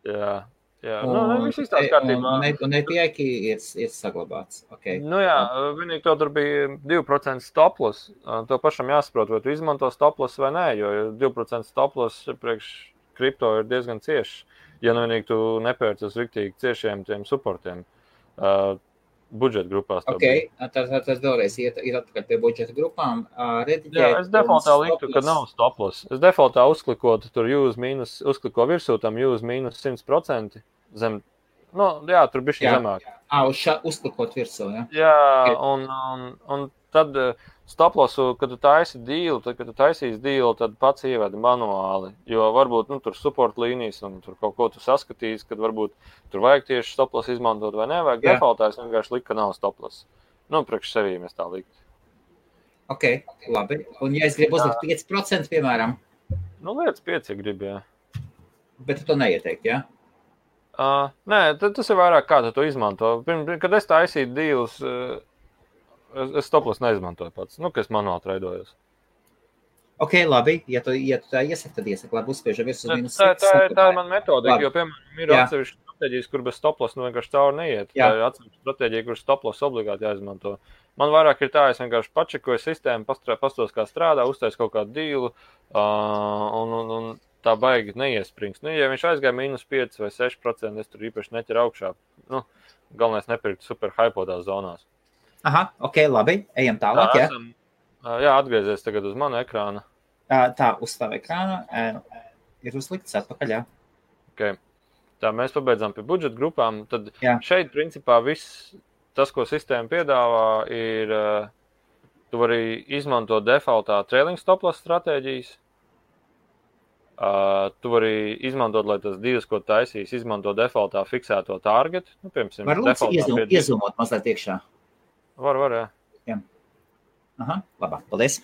Speaker 2: Jā. Jā, viss izstās kārtībā.
Speaker 1: Un EPI ir saglabāts. Okay.
Speaker 2: Vienīgi to tur bija 2% stop-loss. To pašam jāsaprot, vai tu izmanto stop-loss vai nē, jo 2% stop-loss priekš kripto ir diezgan cieši. Ja vienīgi tu nepērci uz riktīgi ciešiem tiem supportiem budžeta grupās.
Speaker 1: Tas vēlreiz ir atpakaļ pie budžeta grupām.
Speaker 2: Es defaultā liktu, ka nav stop-loss. Es defaultā uzklikotu tur uzkliko virsū tam use mīnus 100% zem. Tur bišķi zemāk.
Speaker 1: Uzklikot virsū, jā?
Speaker 2: Jā, un tad stop-lossu, kad tu taisi deal, kad tu taisīsi deal, tad pats ievedi manuāli, jo varbūt tur support līnijas un tur kaut ko tu saskatīsi, kad varbūt tur vajag tieši stop-loss izmantot vai nevajag. Defaultā es vienkārši liku, ka nav stop-loss. Priekš sevī mēs tā liktu.
Speaker 1: Ok, labi. Un ja es gribu uzlikt 5%, piemēram?
Speaker 2: Lietas 5, ja gribi, jā.
Speaker 1: Bet tu to neieteikt, jā?
Speaker 2: Nē, tas ir vairāk kā tu to izmanto. Kad es taisīju deals, es stop-loss neizmantoju pats, kas manuāli treidojos.
Speaker 1: Ok, labi, ja tu tā iesaki, tad iesaki, labi, uzspiežam virs uz mīnus
Speaker 2: 6. Tā ir man metodika, jo, piemēram, ir atsevišķi stratēģijas, kur bez stop-loss vienkārši cauri neiet. Tā ir atsevišķi stratēģija, kur stop-loss obligāti jāizmanto. Man vairāk ir tā, es vienkārši pačekoju sistēmu, pastos, kā strādā, uztais kaut kādu dealu, un tā baigi neiesprings. Ja viņš aizgāja mīnus 5 vai 6%, es tur īpaši neķeru augšā. Galvenais nepirkt super hypotās zonās.
Speaker 1: Aha, ok, labi, ejam tālāk, jā?
Speaker 2: Jā, atgriezies tagad uz manu ekrānu.
Speaker 1: Tā, uz tavu ekrānu ir uzlikts atpakaļ, jā.
Speaker 2: Ok, tā mēs pabeidzām pie budžeta grupām, tad šeit, principā, viss tas, ko sistēma piedāvā, ir, tu vari izmantot defaultā trailing stop-loss stratēģijas, tu vari izmantot, lai tas divas, ko taisīs, izmanto defaultā fiksēto target. Piemēram,
Speaker 1: var lūdzu iezumot mazliet iekšā?
Speaker 2: Var, jā.
Speaker 1: Aha, labāk, paldies.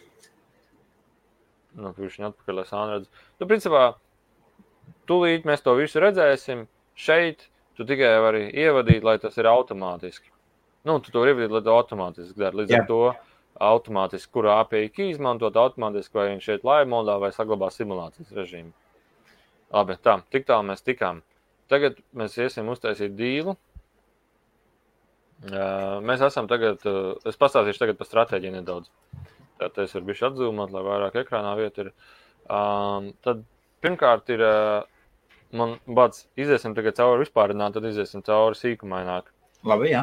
Speaker 2: Viņš atpakaļ, lai sāni redz. Principā, tūlīt mēs to visu redzēsim. Šeit tu tikai vari ievadīt, lai tas ir automātiski. Tu to vari ievadīt, lai to automātiski dara. Līdz ar to automātiski, kuru API key izmantot automātiski, vai viņš šeit live modā vai saglabā simulācijas režīmu. Labi, tik tālu mēs tikām. Tagad mēs iesim uztaisīt dealu. Mēs esam tagad, es pastāstīšu tagad par stratēģiju nedaudz. Tātad es varu bišķi atzūmot, lai vairāk ekrānā vieta ir. Tad pirmkārt ir, man bāds, iziesim tagad cauri vispārināt, tad iziesim cauri sīkumaināk.
Speaker 1: Labi, jā.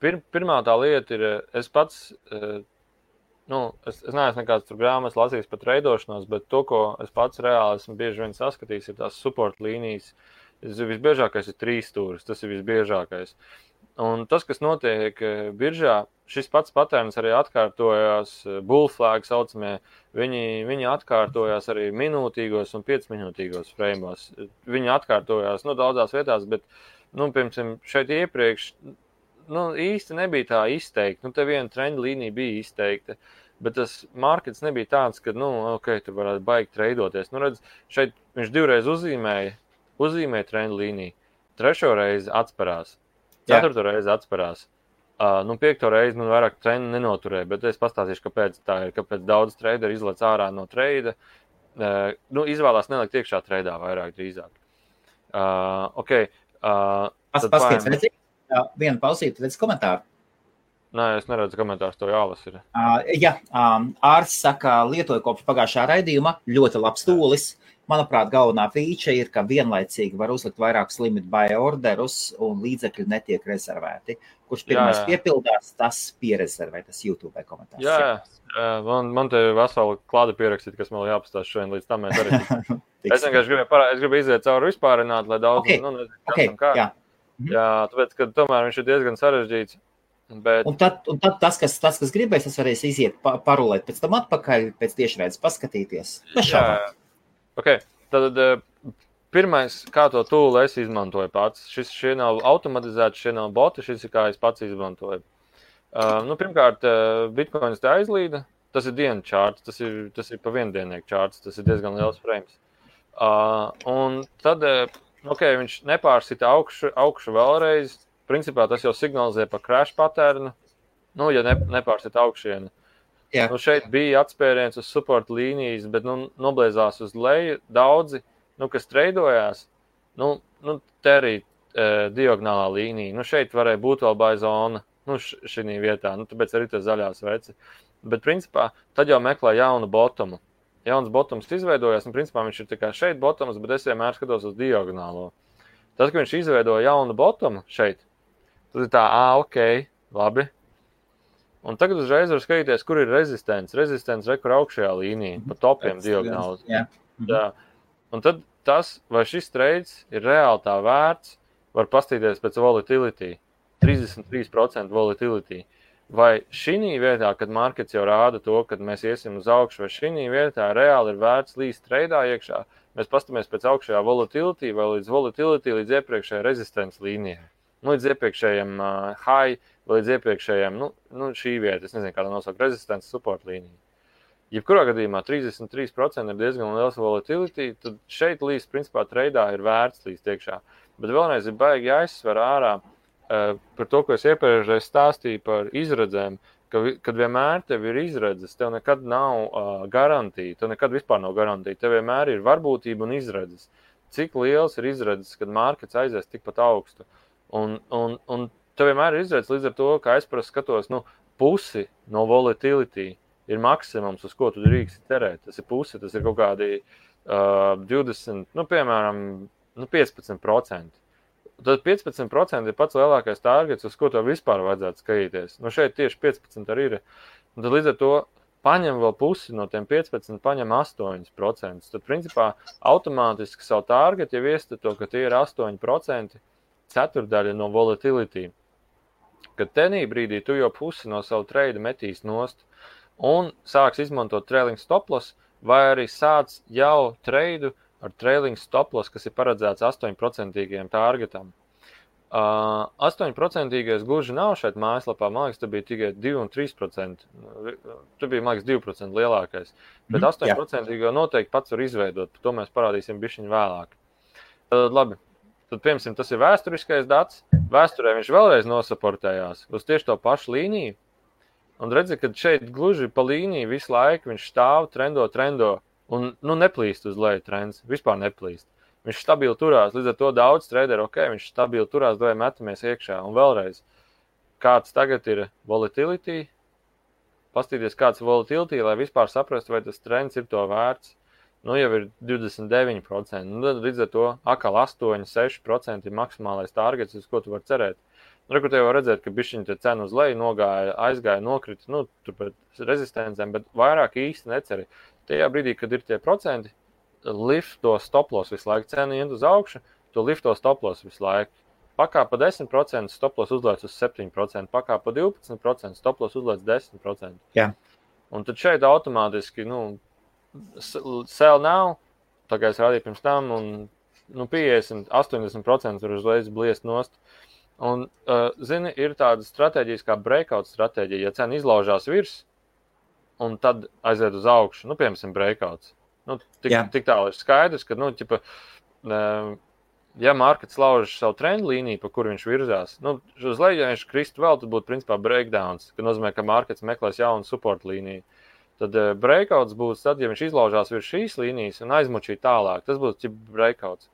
Speaker 2: Pirmā tā lieta ir, es pats, es neesmu nekāds tur grāmatas lasījis par treidošanos, bet to, ko es pats reāli esmu bieži vien saskatījis, ir tās support līnijas. Visbiežākais ir 3 stūris, tas ir visbiežākais. Un tas, kas notiek biržā, šis pats patērns arī atkārtojās bull flag saucamie, viņi atkārtojās arī minūtīgos un 5 minūtīgos frēmos. Viņi atkārtojās daudzās vietās, bet, piemēram, šeit iepriekš, īsti nebija tā izteikta. Te viena trenda līnija bija izteikta, bet tas markets nebija tāds, ka, tur varētu baigi treidoties. Redz, šeit viņš 2 reiz uzzīmēja trendu līniju, 3. reizi atsparās, 4. reizi atsparās, 5. reizi man vairāk trendu nenoturēja, bet es pastāstīšu, kāpēc tā ir, kāpēc daudz traderi izlec ārā no treida, izvēlās nelikt iekšā treidā vairāk drīzāk.
Speaker 1: Paskaties, redzi, vienu pausīt, redz komentāru.
Speaker 2: Nē, es neredzu komentārus, to jālas ir.
Speaker 1: Ārs saka, lietoju kopš pagājušā raidījuma, ļoti labs tūlis. Manuprāt, galvenā feature ir, ka vienlaicīgi var uzlikt vairākus limit buy orderus un līdzekļi netiek rezervēti. Kurš pirmais piepildās, tas pierezervē, tas YouTube komentārs.
Speaker 2: Jā. Man te vesela klāda pierakstīt, kas man jāpastāst šodien, līdz tam mēs arī. Es vienkārši gribu iziet cauri vispārināt, lai daudz, Jā, tāpēc, ka tomēr viņš ir diezgan sarežģīts. Bet... Un
Speaker 1: tad tas, kas gribēs, tas varēs iziet parulēt pēc tam atpakaļ, pēc tiešraides paskatīties.
Speaker 2: Tad pirmais, kā to tūlu es izmantoju pats. Šie nav automatizēti, šie nav boti, šis ir kā es pats izmantoju. Pirmkārt, Bitcoins te aizlīda, tas ir dienu čārts, tas ir pa viendiennieku čārts, tas ir diezgan liels frames. Un tad, viņš nepārsita augšu vēlreiz. Principā tas jau signalizē par crash patērnu, ja nepārsita augšienu. Šeit bija atspēriens uz support līnijas, bet noblēzās uz leju. Daudzi, kas treidojās, te arī diagonālā līnija. Šeit varēja būt vēl buy zona, šī vietā, tāpēc arī tas zaļās veci. Bet, principā, tad jau meklē jaunu bottomu. Jauns bottoms izveidojās, un, principā, viņš ir tikai šeit bottoms, bet es vienmēr skatos uz diagonālo. Tad, kad viņš izveidoja jaunu bottomu šeit, tad ir tā, ok, labi. Un tagad uzreiz var skatīties, kur ir rezistents. Rezistents rekur augšējā līnija, pa topiem diagonāli. Jā. Un tad tas, vai šis trades ir reāli tā vērts, var pastīties pēc volatility. 33% volatility. Vai šī vietā, kad markets jau rāda to, kad mēs iesim uz augšu, vai šī vietā reāli ir vērts līdz treidā iekšā, mēs pastamies pēc augšējā volatility vai līdz volatility līdz iepriekšējai rezistents līnijai. Līdz iepriekšējiem high vai līdz iepriekšējiem, šī vieta, es nezinu, kādā nosaukt, rezistents support līnija. Jebkurā gadījumā 33% ir diezgan liels volatility, tad šeit līdz, principā, treidā ir vērts līdz iekšā. Bet vēlreiz ir baigi jāizsver ārā par to, ko es iepriekšēji stāstīju par izredzēm, kad vienmēr tev ir izredzes, tev nekad nav garantija, tev nekad vispār nav garantija, tev vienmēr ir varbūtība un izredzes. Cik liels ir izredzes, kad markets aizies tikpat augstu. Un tev vienmēr ir izredzes līdz ar to, ka es parasti skatos, pusi no volatility ir maksimums, uz ko tu drīksti cerēt. Tas ir pusi, tas ir kaut kādi 20, piemēram, 15%. Tad 15% ir pats lielākais targets, uz ko tev vispār vajadzētu skatīties. Šeit tieši 15 arī ir. Un tad līdz ar to paņem vēl pusi no tiem 15, paņem 8%. Tad, principā, automātiski savu targetu jau iestato, ka tie ir 8%, ceturdaļa no volatility. Kad tenī brīdī tu jau pusi no savu trade metīs nost un sāks izmantot trailing stop loss, vai arī sāc jau trade ar trailing stop loss, kas ir paredzēts 8% targetam. 8% gluži nav šeit mājaslapā, man liekas, tas bija tikai 2 un 3%. Tu bija, man liekas, 2% lielākais. Bet 8% noteikti pats var izveidot, par to mēs parādīsim bišķiņu vēlāk. Labi, tad, piemēram, tas ir vēsturiskais dats. Vēsturē viņš vēlreiz nosaportējās uz tieši to pašu līniju. Un redzi, ka šeit gluži pa līniju visu laiku viņš stāv, trendo. Un neplīst uz leju trends, vispār neplīst. Viņš stabili turās, līdz ar to daudz traderu, viņš stabili turās, vai metamies iekšā. Un vēlreiz, kāds tagad ir volatility, pastīties kāds volatility, lai vispār saprastu, vai tas trends ir to vērts. Jau ir 29%, tad līdz ar to atkal 8-6% ir maksimālais targets, uz ko tu vari cerēt. Kur te jau redzēt, ka bišķiņi te cena uz leju nogāja, aizgāja, nokrita, tur pēc rezistencēm, bet vairāk īsti neceri. Tajā brīdī, kad ir tie procenti, lift to stop loss visu laiku, cena iet uz augšu, tu lift to stop loss visu laiku. Pakāpa 10%, stop loss uzlēc uz 7%, pakāpa 12%, stop loss uzlēc 10%.
Speaker 1: Jā.
Speaker 2: Un tad šeit automātiski, sell now, tā kā es rādīju pirms tam, un 50-80% var uzreiz bliest nost. Un, zini, ir tāda stratēģijas kā breakout stratēģija, ja cena izlaužās virs, un tad aiziet uz augšu, piemēram, breakouts. Tik tālu ir skaidrs, ka, ja markets lauž savu trendu līniju, pa kur viņš virzās, uz leju, ja viņš kristu vēl, tad būtu, principā, breakdowns, ka nozīmē, ka markets meklēs jaunu support līniju. Tad breakouts būs tad, ja viņš izlaužās virs šīs līnijas un aizmučī tālāk. Tas būs breakouts.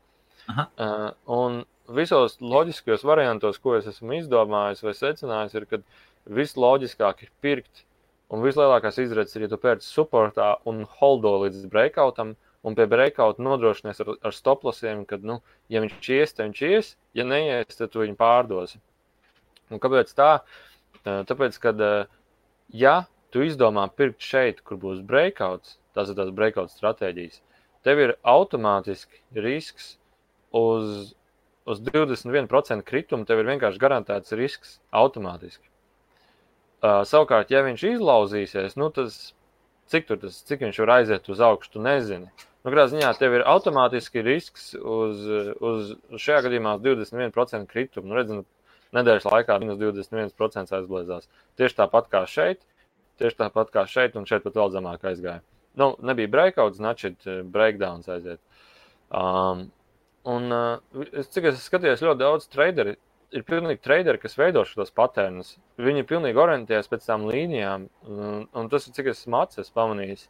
Speaker 2: Un visos loģiskajos variantos, ko es esmu izdomājis vai secinājis, ir, ka visloģiskāk ir pirkt. Un vislielākās izredzes ir, ja tu pērci supportā un holdo līdz breakoutam, un pie breakouta nodrošinies ar stop lossiem, kad, ja viņš ies, tad viņš ies, ja neies, tad tu viņu pārdosi. Un kāpēc tā? Tāpēc, kad, ja tu izdomā pirkt šeit, kur būs breakouts, tās ir tās breakout stratēģijas, tev ir automātiski risks uz 21% kritumu, tev ir vienkārši garantēts risks automātiski. Savukārt, ja viņš izlauzīsies, cik viņš var aiziet uz augšu, tu nezini. Kādā ziņā tev ir automātiski risks uz šajā gadījumā 21% kritumu. Redzi, nedēļas laikā minus 21% aizbliezās. Tieši tāpat kā šeit, un šeit pat vēl zemāk aizgāja. Nebija breakouts, значит, breakdowns aiziet. Cik es skatījos ļoti daudz traderi, ir pilnīgi traderi, kas veido šos patērnus. Viņi pilnīgi orientējas pēc tām līnijām, un tas ir, cik es esmu pamanījis,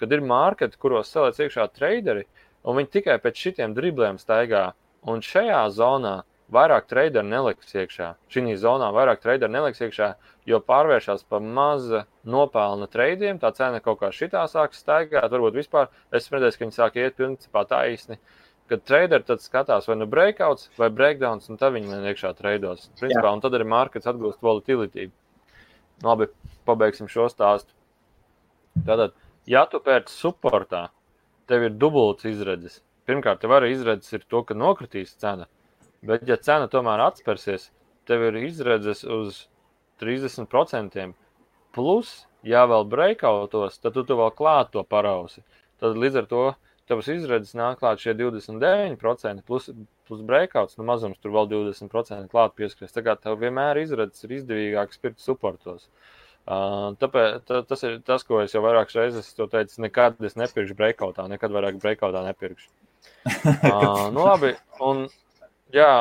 Speaker 2: kad ir marketi, kuros saliec iekšā traderi, un viņi tikai pēc šitiem dribliem staigā. Un šajā zonā vairāk traderi neliks iekšā. Šī zonā vairāk traderi neliks iekšā, jo pārvēršās pa maza nopelna treidiem, tā cena kaut kā šitā sāk staigāt, varbūt vispār. Es redzēju, ka viņi sāk iet principā taisni. Kad traderi tad skatās vai nu breakouts vai breakdowns, un tad viņi iekšā treidos. Principā, un tad arī markets atgūst volatility. Labi, pabeigsim šo stāstu. Tātad, ja tu pērci supportā, tev ir dubults izredzes. Pirmkārt, tev arī izredzes ir to, ka nokritīs cena. Bet, ja cena tomēr atspērsies, tev ir izredzes uz 30%. Plus, ja vēl breakoutos, tad tu vēl klāt to parausi. Tad līdz ar to tavas izredzes nāk klāt šie 29%, plus breakouts, nu mazums tur vēl 20% klāt pieskries. Tā kā tev vienmēr izredzes ir izdevīgāk pirkt supportos. Tāpēc tas ir tas, ko es jau vairākas reizes teicu, nekad es nepirkšu breakoutā, nekad vairāk breakoutā nepirkšu. Nu labi, un jā,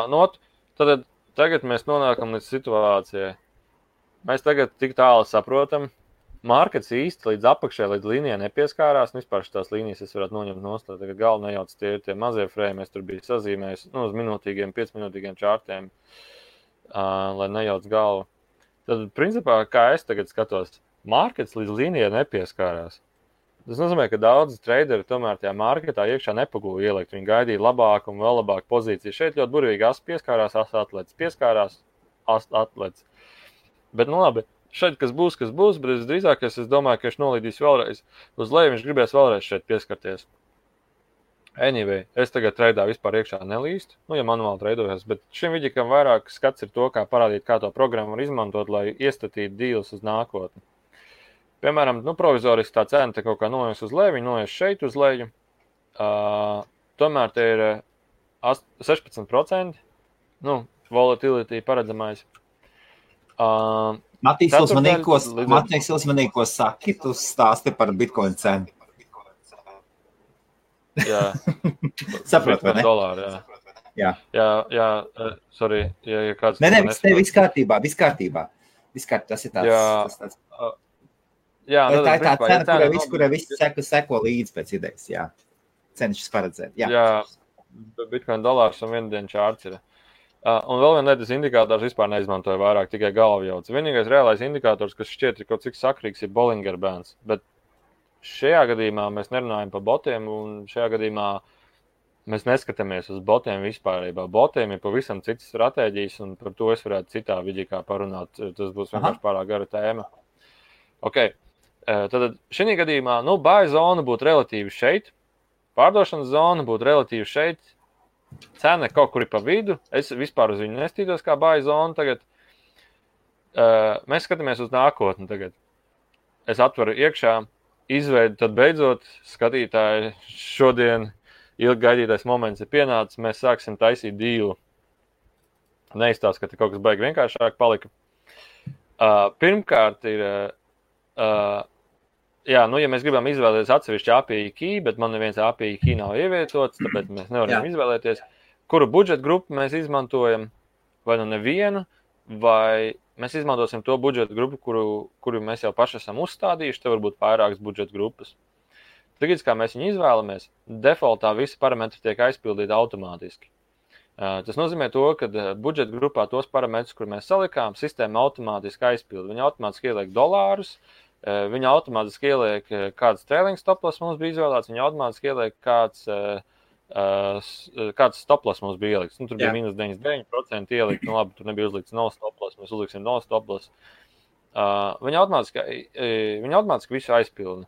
Speaker 2: tad tagad mēs nonākam līdz situācijai. Mēs tagad tik tālu saprotam, markets īsti līdz apakšai, līdz līnijai nepieskārās, un vispār šitās līnijas es varētu noņemt nost, tagad galvu nejauc tie mazie frame, es tur biju sazīmējis, uz minūtīgiem, 5-minūtīgiem čārtiem, lai nejauc galvu. Tad, principā, kā es tagad skatos, markets līdz līnijai nepieskārās. Tas nozīmē, ka daudzi traderi tomēr tajā marketā iekšā nepagūja ielikt. Viņi gaidīja labāku un vēl labāku pozīciju. Šeit ļoti burvīgi as pieskārās, as atlets. Pieskārās, as atlets. Bet, nu labi, šeit kas būs, bet visdrīzāk es domāju, ka viņš nolīdīs vēlreiz. Uz leju viņš gribēs vēlreiz šeit pieskarties. Anyway, es tagad traidā vispār iekšā nelīstu, ja manuāli treidojos, bet šim vidikam vairāk skats ir to, kā parādīt, kā to programmu var izmantot, lai iestatītu dīlus uz nākotni. Piemēram, provizoriski tā cena te kaut kā noies uz leju, viņi noies šeit uz leju. Tomēr te ir 16%, volatility paredzamais.
Speaker 1: Matīs, uzmanīgi, ko saki, tu stāsti par Bitcoin cenu.
Speaker 2: Jā.
Speaker 1: Saprot, vai ne?
Speaker 2: $, jā. Jā, sorry. Ja kāds
Speaker 1: viss kārtībā. Tas ir tāds.
Speaker 2: Jā,
Speaker 1: tā ir tā cena, kurai visi seko līdzi pēc idejas, jā. Cenšas paredzēt, jā.
Speaker 2: Jā, Bitcoin $1 un viena diena čārts ir. Un vēl viena lietas indikators vispār neizmantoja vairāk, tikai galvu jauc. Vienīgais reālais indikators, kas šķiet ir kaut cik sakrīgs, ir Bollinger Bands, bet šajā gadījumā mēs nerunājam par botiem, un šajā gadījumā mēs neskatāmies uz botiem vispārībā. Botiem ir pavisam citas stratēģijas, un par to es varētu citā vidīkā parunāt. Tas būs vienkārši pārāk gara tēma. Ok, tad šī gadījumā, buy zona būtu relatīvi šeit, pārdošanas zona būtu relatīvi šeit, cena kaut kur ir pa vidu, es vispār uz viņu nestītos kā buy zona tagad. Mēs skatāmies uz nākotni tagad. Es atveru iekšā, izveidu, tad beidzot skatītāji šodien ilgi gaidītais moments ir pienācis, mēs sāksim taisīt dīlu. Neizstāst, ka te kaut kas baigi vienkāršāk palika. Pirmkārt ir, ja mēs gribam izvēlēties atsevišķi API key, bet man neviens API key nav ievietots, tāpēc mēs nevaram izvēlēties, kuru budžeta grupu mēs izmantojam, vai nevienu, vai mēs izmantosim to budžeta grupu, kuru mēs jau paši esam uzstādījuši, te varbūt vairākas budžeta grupas. Tagad, kā mēs viņu izvēlamies, defaultā visi parametri tiek aizpildīti automātiski. Tas nozīmē to, ka budžeta grupā tos parametrus, kur mēs salikām, sistēma automātiski aizpilda. Viņa automātiski ieliek $, viņa automātiski ieliek kāds trailing stoploss mums bija izvēlēts, viņa automātiski ieliek kāds stoploss mums bija ielikts. Tur bija minus 99% ielikt, labi, tur nebija uzlikts no stoploss, mēs uzliksim no stoploss. Viņa automātiski visu aizpilda.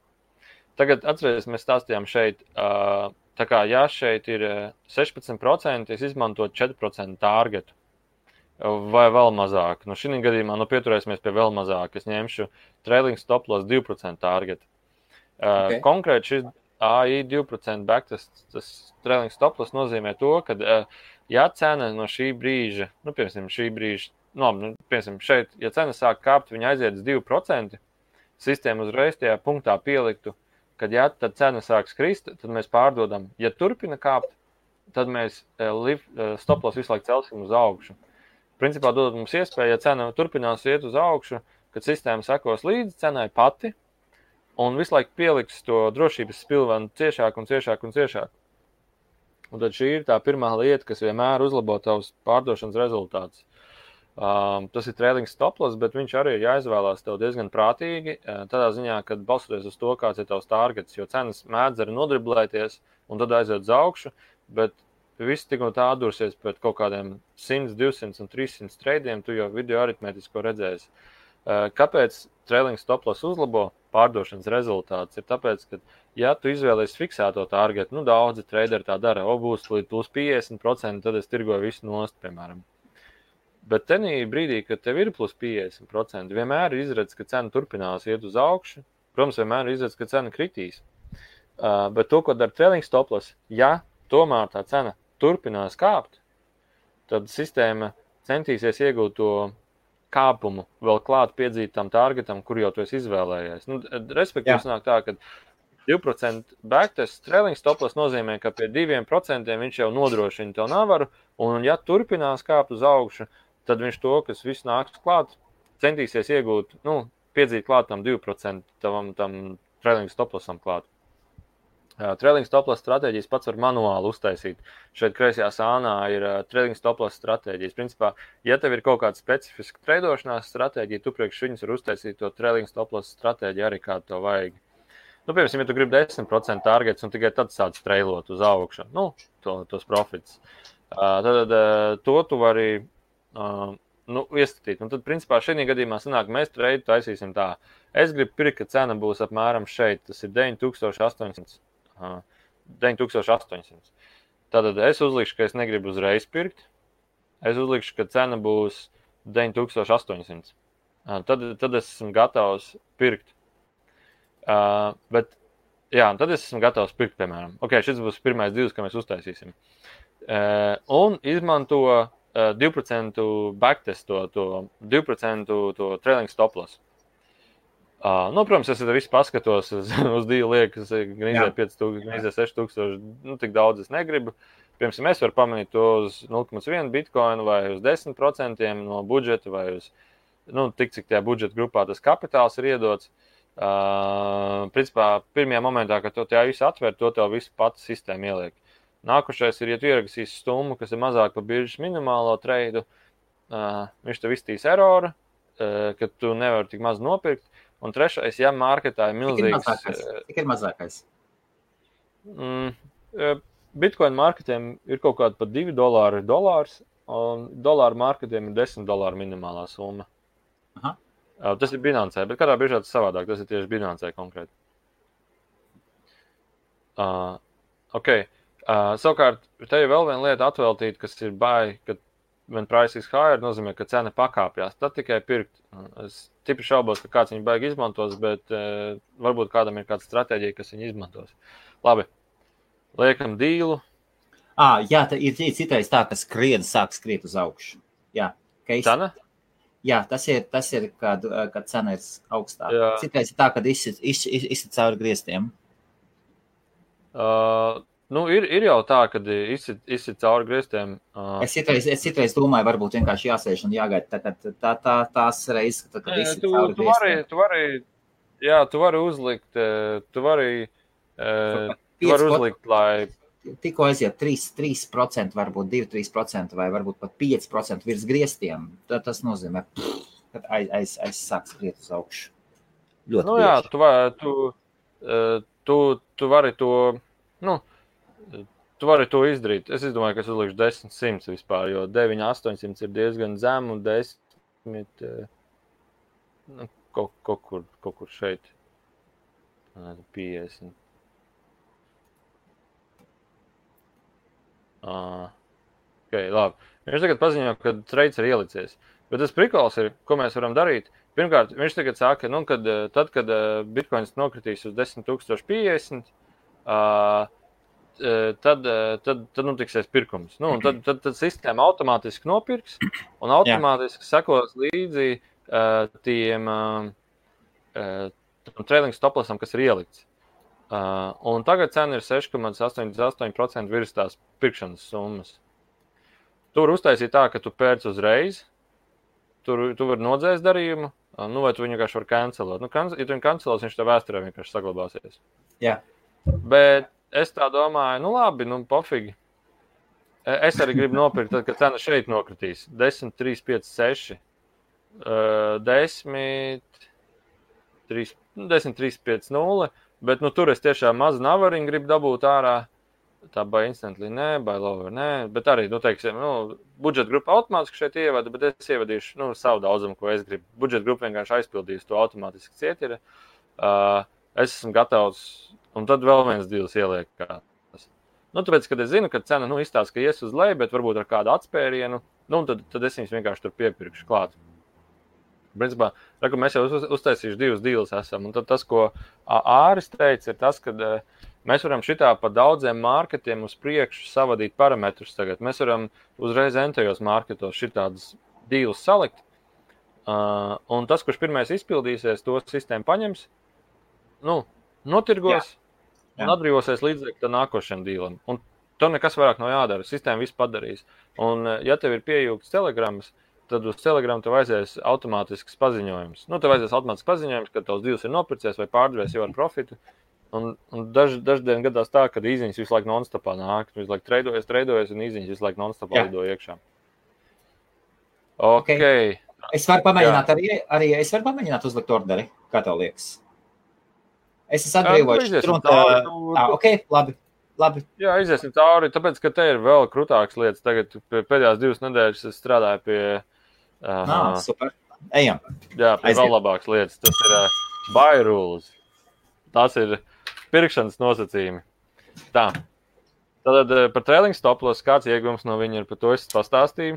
Speaker 2: Tagad atceries, mēs stāstījām šeit, tā kā ja šeit ir 16%, es izmantotu 4% targetu vai vēl mazāk. Šī gadījumā pieturēsimies pie vēl mazāk. Es ņemšu trailing stoploss 2% targetu. Okay. Konkrēti šis AI 2% backtest, tas trailing stoploss nozīmē to, ka ja cena no šī brīža, piemēram, šeit, ja cena sāk kāpt, viņa aiziet uz 2%, sistēma uzreiz tajā punktā pieliktu, kad ja tad cena sāk skrist, tad mēs pārdodam. Ja turpina kāpt, tad mēs stoploss visu laiku celsim uz augšu. Principā dod mums iespēju, ja cena turpinās iet uz augšu, kad sistēma sekos līdzi cenai pati, un visu laiku pieliks to drošības spilvenu ciešāk un ciešāk un ciešāk. Un tad šī ir tā pirmā lieta, kas vienmēr uzlabo tavus pārdošanas rezultātus. Tas ir trailing stop loss, bet viņš arī ir jāizvēlās tev diezgan prātīgi, tādā ziņā, kad balstoties uz to, kāds ir tavs targets, jo cenas mēdz arī nodriblēties un tad aiziet uz augšu, bet viss tik un tā atdursies pēc kaut kādiem 100, 200 un 300 treidiem, tu jau video aritmētisko redzēsi. Kāpēc trailing stop loss uzlabo pārdošanas rezultāts? Ir tāpēc, ka, ja tu izvēlies fiksēto targetu, daudzi traderi tā dara, būs līdz plus 50%, tad es tirgoju visu nost, piemēram. Bet tenī brīdī, kad tev ir plus 50%, vienmēr ir izredz, ka cena turpinās iet uz augšu. Protams, vienmēr ir izredz, ka cena kritīs. Bet to, ko dara trailing stop loss, ja tomēr tā cena turpinās kāpt, tad sistēma centīsies iegūt to kāpumu vēl klāt piedzītam targetam, kur jau tu esi izvēlējies. Respektīvi, sanāk tā, ka 2% backtest trailing stop loss nozīmē, ka pie 2% viņš jau nodrošina tev navaru, un ja turpinās kāpt uz augšu, tad viņš to, kas viss nāks klāt, centīsies iegūt, piedzīt klāt tam 2% tam trailing stop lossam klāt. Trailing stop loss stratēģijas pats var manuāli uztaisīt. Šeit kreisajā sānā ir trailing stop loss stratēģijas. Principā, ja tev ir kaut kāda specifiska treidošanās stratēģija, tu priekš viņus var uztaisīt to trailing stop loss stratēģiju arī kā tev vajag. Piemēram, ja tu gribi 10% targets un tikai tad sāc treilot uz augšu, tos profits, tad to tu vari iestatīt. Un tad, principā, šajā gadījumā sanāk, mēs treidu taisīsim tā. Es gribu pirkt, ka cena būs apmēram šeit, tas ir 9800. Tātad es uzlikšu, ka es negribu uzreiz pirkt. Es uzlikšu, ka cena būs 9800. Tad es esmu gatavs pirkt. Tad es esmu gatavs pirkt, piemēram. Šis būs pirmais divs, ko mēs uztaisīsim. Un izmanto 2% backtest, to 2% to trailing stop loss. Protams, es visu paskatos uz dīlu liekas, gan izēja 5000, gan izēja 6000, tik daudz es negribu. Piemēram, es varu pamanīt to uz 0,1 bitcoinu vai uz 10% no budžeta vai uz, tik cik tajā budžeta grupā tas kapitāls ir iedots. Principā, pirmajā momentā, kad to tajā visu atver, to tev visu pats sistēma ieliek. Nākušais ir, ja tu ierakstīsi summu, kas ir mazāk par biržas minimālo treidu, viņš tev iztīs eroru, ka tu nevari tik maz nopirkt. Un trešais, ja marketā ir milzīgs...
Speaker 1: Cik ir mazākais?
Speaker 2: Bitcoin marketiem ir kaut kāda pat $2 dolārs, un dolāru marketiem ir $10 minimālā summa.
Speaker 1: Aha.
Speaker 2: Tas ir Binancē, bet kādā biržā tas savādāk, tas ir tieši Binancē konkrēti. Savukārt, te ir vēl viena lieta atveltīt, kas ir kad when price is higher, nozīmē, ka cena pakāpjās. Tad tikai pirkt. Es tipri šaubos, ka kāds viņu baigi izmantos, bet varbūt kādam ir kāda stratēģija, kas viņu izmantos. Labi, liekam dīlu.
Speaker 1: Jā, ir citreiz tā, ka sāk skriet uz augšu. Jā,
Speaker 2: cena?
Speaker 1: Jā, tas ir kad cena ir augstāk. Jā. Citreiz ir tā, kad izsit cauri griestiem.
Speaker 2: Ir jau tā, kad izsit cauri griestiem.
Speaker 1: Es citreiz domāju, varbūt vienkārši jāsēž un jāgaida tās reizes, kad izsit cauri griestiem.
Speaker 2: Tu vari uzlikt, lai...
Speaker 1: Tikko aiziet 3%, varbūt 2-3% vai varbūt pat 5% virs griestiem, tad tas nozīmē, ka aizsāk skriet uz augšu. Ļoti
Speaker 2: tu vari to... Tu vari to izdarīt. Es domāju, ka es uzlikšu 10-100 vispār, jo 9-800 ir diezgan zem un 10 kaut kur šeit. 50. Labi. Viņš tagad paziņo, ka trades ir ielicies. Bet tas prikols ir, ko mēs varam darīt. Pirmkārt, viņš tagad saka, kad Bitcoins nokritīs uz 10,050, tad tiksies pirkums. Tad sistēma automātiski nopirks un automātiski sekos līdzi tiem trailing stop lossam, kas ir ielikts. Un tagad cena ir 6,88% virs tās pirkšanas summas. Tu vari uztaisīt tā, ka tu pērc uzreiz, tu vari nodzēst darījumu, vai tu viņu vienkārši vari cancelot. Ja tu viņu cancelos, viņš tev vēsturē vienkārši saglabāsies.
Speaker 1: Jā.
Speaker 2: Bet es tā domāju, labi, pofīgi. Es arī gribu nopirkt, tad, kad cena šeit nokritīs. 10, 3, 5, 6. 10, 3, 5, 0. Bet tur es tiešām mazu navariņu gribu dabūt ārā. Tā by instantly, by lower, bet arī, teiksim, budžeta grupa automātiski šeit ievada, bet es ievadīšu, savu daudzumu, ko es gribu. Budžeta grupa vienkārši aizpildīs to automātiski cietiri. Es esmu gatavs, un tad vēl viens deals ieliekās. Tāpēc, kad es zinu, ka cena, izstāsta, ka ies uz leju, bet varbūt ar kādu atspērienu, tad es viņus vienkārši tur piepirkšu klāt. Principā, mēs jau uztaisījuši 2 deals esam, un tad tas, ko Āris teica, ir tas, ka mēs varam šitā pa daudziem marketiem uz priekšu savadīt parametrus tagad. Mēs varam uzreiz entajos marketos šitādus deals salikt, un tas, kurš pirmais izpildīsies, to sistēmu paņems, notirgos un atbrīvosies līdzekļu nākošajam dealam. Un tur nekas vairāk nav jādara, sistēma viss padarīs. Un, ja tev ir pieejūgts telegramas, tad uz Telegram tev aizies automātisks paziņojums. Tev aizies automātisks paziņojums, ka tavs deals ir nopircies vai pārdevies jau ar profitu. Un daždien gadās tā, ka īziņas visu laiku non-stopā nāk. Visu laiku treidojas un īziņas visu laiku non-stopā lido iekšā. Okay.
Speaker 1: Es varu pamēģināt arī es varu pamēģināt uzlikt orderi, kā tev liekas. Es esmu atbrīvojuši. Labi.
Speaker 2: Jā, iziesim cauri, tāpēc, ka te ir vēl krutākas lietas. Tagad pēdējās 2 nedēļas es strādāju pie...
Speaker 1: super. Ejam.
Speaker 2: Jā, pie vēl labākas lietas. Tas ir buy rules. Tas ir pirkšanas nosacījumi. Tā. Tad par trailing stop loss kāds iegums no viņa ir, par to es pastāstīju.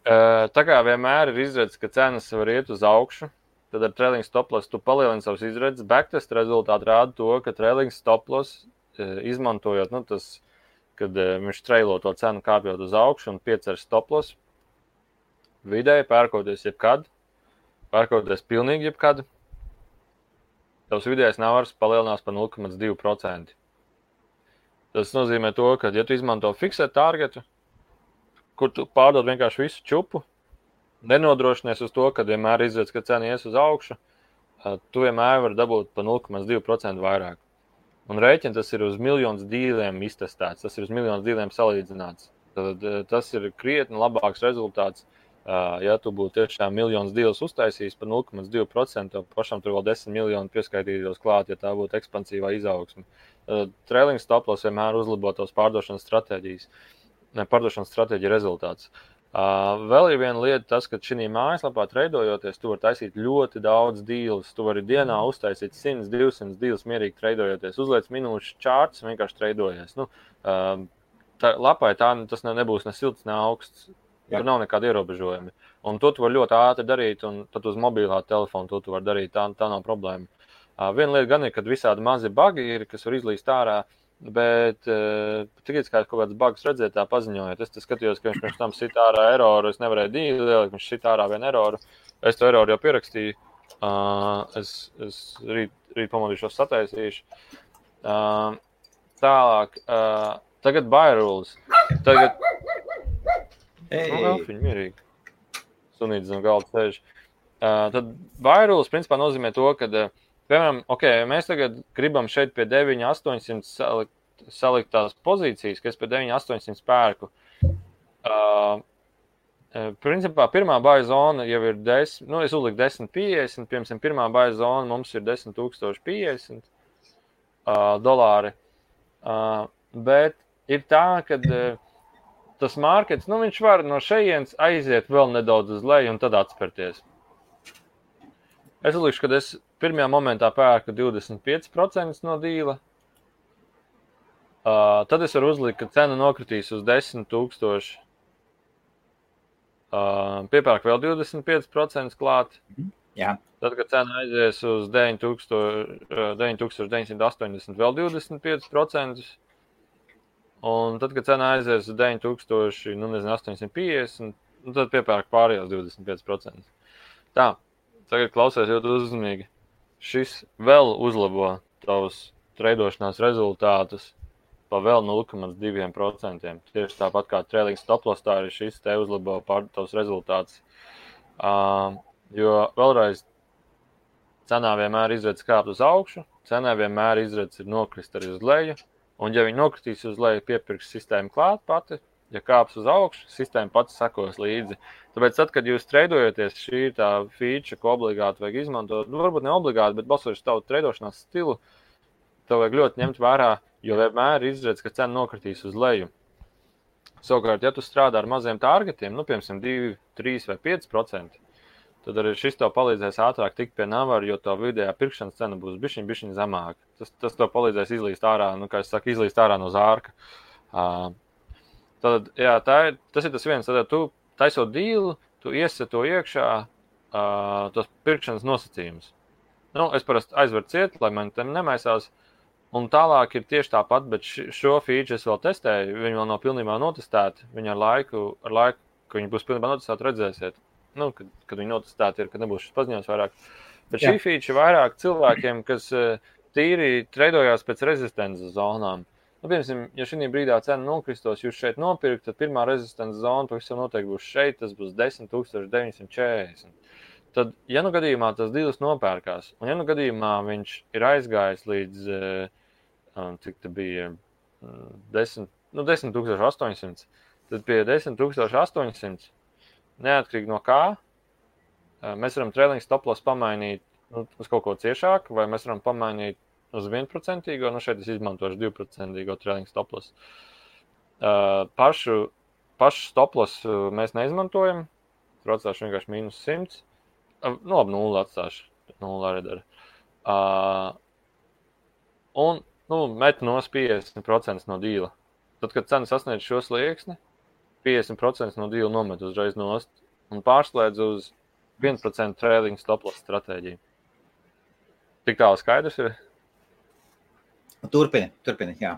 Speaker 2: Tā kā vienmēr ir izredzes, ka cenas var iet uz augšu, tad ar trailing stop loss tu palielini savus izredzes. Backtest rezultāti rāda to, ka trailing stop loss izmantojot, kad viņš trailo to cenu kāpjot uz augšu un piecer stop loss, vidēji pērkoties jebkad, pērkoties pilnīgi jebkad, tavs vidējais navars palielinās par 0,2%. Tas nozīmē to, ka, ja tu izmanto fiksēt targetu, kur tu pārdod vienkārši visu čupu, nenodrošinies uz to, kad vienmēr izredz, ka cena ies uz augšu, tu vienmēr vari dabūt par 0,2% vairāk. Un rēķini tas ir uz miljonus dīliem iztestēts, tas ir uz miljonus dīliem salīdzināts. Tad tas ir krietni labāks rezultāts. Ja tu būtu tiešām miljonus dīlus uztaisījis par 0,2%, tad pašam tur vēl 10 miljoni pieskaitītos klāt, ja tā būtu ekspansīvā izaugsme. Trailing stop loss vienmēr uzlabo tos pārdošanas stratēģija rezultāts. Vēl ir viena lieta tas, ka šī mājaslapā treidojoties, tu vari taisīt ļoti daudz dīlus. Tu vari dienā uztaisīt 100, 200 dīlus mierīgi treidojoties. Uzliec minūšu čārts, vienkārši treidojies. Lapai tas nebūs ne silts, ne augsts. Tur nav nekāda ierobežojumi. Un to tu vari ļoti ātri darīt, un tad uz mobilā telefonu to tu vari darīt. Tā nav problēma. Viena lieta gan ir, kad visādi mazi bagi ir, kas var izlīst ārā, bet tikai kā kaut kāds bugs redzēt, tā paziņojot. Es skatījos, ka viņš pirms tam sit ārā eroru, es nevarēju dīli lielikt, viņš sit ārā vienu eroru. Es to eroru jau pierakstīju. Es rīt pamodīšos sataisīšu. Tālāk. Tagad buy rules. Tagad... Elfiņi mierīgi. Sunītis zem galda sēž. Tad buy rules principā nozīmē to, ka, piemēram, mēs tagad gribam šeit pie 9,800 salikt tās pozīcijas, ka es pie 9,800 pērku. Principā pirmā buy zona jau ir 10, es uzliku 10,50, piemēram, pirmā buy zona mums ir 10,050 dolāri. Bet ir tā, ka tas markets, viņš var no šejienes aiziet vēl nedaudz uz leju un tad atspērties. Es uzlikšu, ka es pirmajā momentā pērku 25% no dīla. Tad es varu uzlikt, ka cena nokritīs uz 10,000. Piepērk vēl 25% klāt.
Speaker 1: Jā.
Speaker 2: Tad, kad cena aizies uz 9,980 vēl 25%. Un tad, kad cena aizies uz 9,850, tad piepērk pārējos 25%. Tā, tagad klausies ļoti uzmanīgi. Šis vēl uzlabo tavus treidošanās rezultātus pa vēl 0,2%. Tieši tāpat kā trailing stop loss, tā arī šis te uzlabo tavus rezultātus. Jo vēlreiz cenā vienmēr izredz kāpt uz augšu, cenā vienmēr izredz ir nokrist arī uz leju. Un, ja viņi nokritīs uz leju, piepirks sistēmu klāt pati, ja kāps uz augšu, sistēma pati sekos līdzi. Tāpēc, tad, kad jūs treidojaties, šī ir tā feature, ko obligāti vajag izmantot. Nu, varbūt ne obligāti, bet balsoties tavu treidošanās stilu, tev vajag ļoti ņemt vērā, jo vienmēr izredz, ka cena nokritīs uz leju. Savukārt, ja tu strādā ar maziem targetiem, nu, piemēram, 2, 3 vai 5%, tad arī šis tev palīdzēs ātrāk tikt pie navara, jo to vidējā pirkšanas cena būs bišķiņ zemāka. Tas tev palīdzēs izlīst ārā, nu, kā es saku, izlīst ārā no zārka. Tad, jā, tas ir tas viens. Tad, tu taisot dīlu, tu iesi to iekšā tos pirkšanas nosacījumus. Nu, es parasti aizveru ciet, lai man te nemaisās. Un tālāk ir tieši tāpat, bet šo feature es vēl testēju. Viņi vēl nav pilnībā notestēti. Viņi ar laiku, ka viņi būs pilnībā notestēti, redzēsiet. Nu, kad viņi notestēti ir, kad nebūs šis paziņojums vairāk. Bet šī feature vairāk cilvēkiem, kas tīri treidojās pēc rezistences zonām. Nu, piemēram, ja šī brīdā cena nokristos, jūs šeit nopirkt, tad pirmā rezistences zona pavisam noteikti būs šeit, tas būs 10,940. Tad, ja nu gadījumā tas dīls nopērkās, un ja nu gadījumā viņš ir aizgājis līdz, cik te bija, 10,800, tad pie 10,800, neatkarīgi no kā, mēs varam trailing stop loss pamainīt uz kaut ko ciešāku, vai mēs varam pamainīt uz 1%, nu šeit es izmantošu 2% trailing stop loss. Pašu stop loss mēs neizmantojam, tur atstāšu vienkārši mīnus 100. Nu, labi, 0 atstāšu, 0 arī dara. Un, met nos 50% no dīla. Tad, kad cena sasniedz šo slieksni, 50% no dīla nomet uzreiz nost un pārslēdz uz 1% trailing stop loss stratēģiju. Tik tālu skaidrs ir?
Speaker 1: Turpini, jā.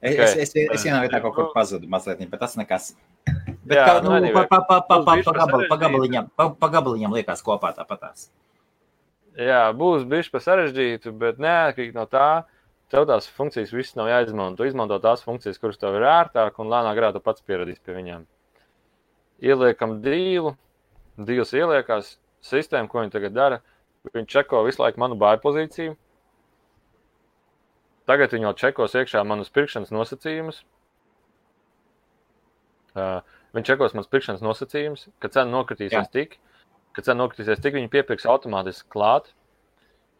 Speaker 1: Es vienā vietā kaut kur pazudu mazliet, bet tas nekas. Bet jā, pa gabaliņam liekas kopā tāpatās.
Speaker 2: Jā, būs bišķi pa sarežģītu, bet neatkarīgi no tā, tev tās funkcijas viss nav jāizmanto. Tu izmanto tās funkcijas, kuras tev ir ērtāk un lēnāk grā tu pats pieradīs pie viņām. Ieliekam dīls ieliekās, sistēma, ko viņi tagad dara, viņi čeko visu laiku manu buy pozīciju. Tagad viņi jau čekos iekšā manus pirkšanas nosacījumus. Viņi čekos manas pirkšanas nosacījumus, kad cena nokritīsies tik. Kad cena nokritīsies tik, viņi piepirks automātiski klāt.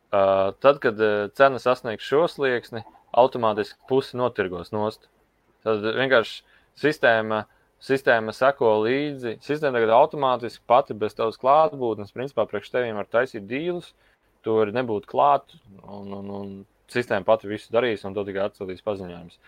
Speaker 2: Tad, kad cena sasniegs šo slieksni, automātiski pusi notirgos nost. Tad vienkārši sistēma seko līdzi. Sistēma tagad automātiski pati bez tavas klātbūtnes, principā priekš teviem var taisīt dīlus, tu vari nebūt klāt un sistēma pati visu darīs un to tikai atsūtīs paziņojums.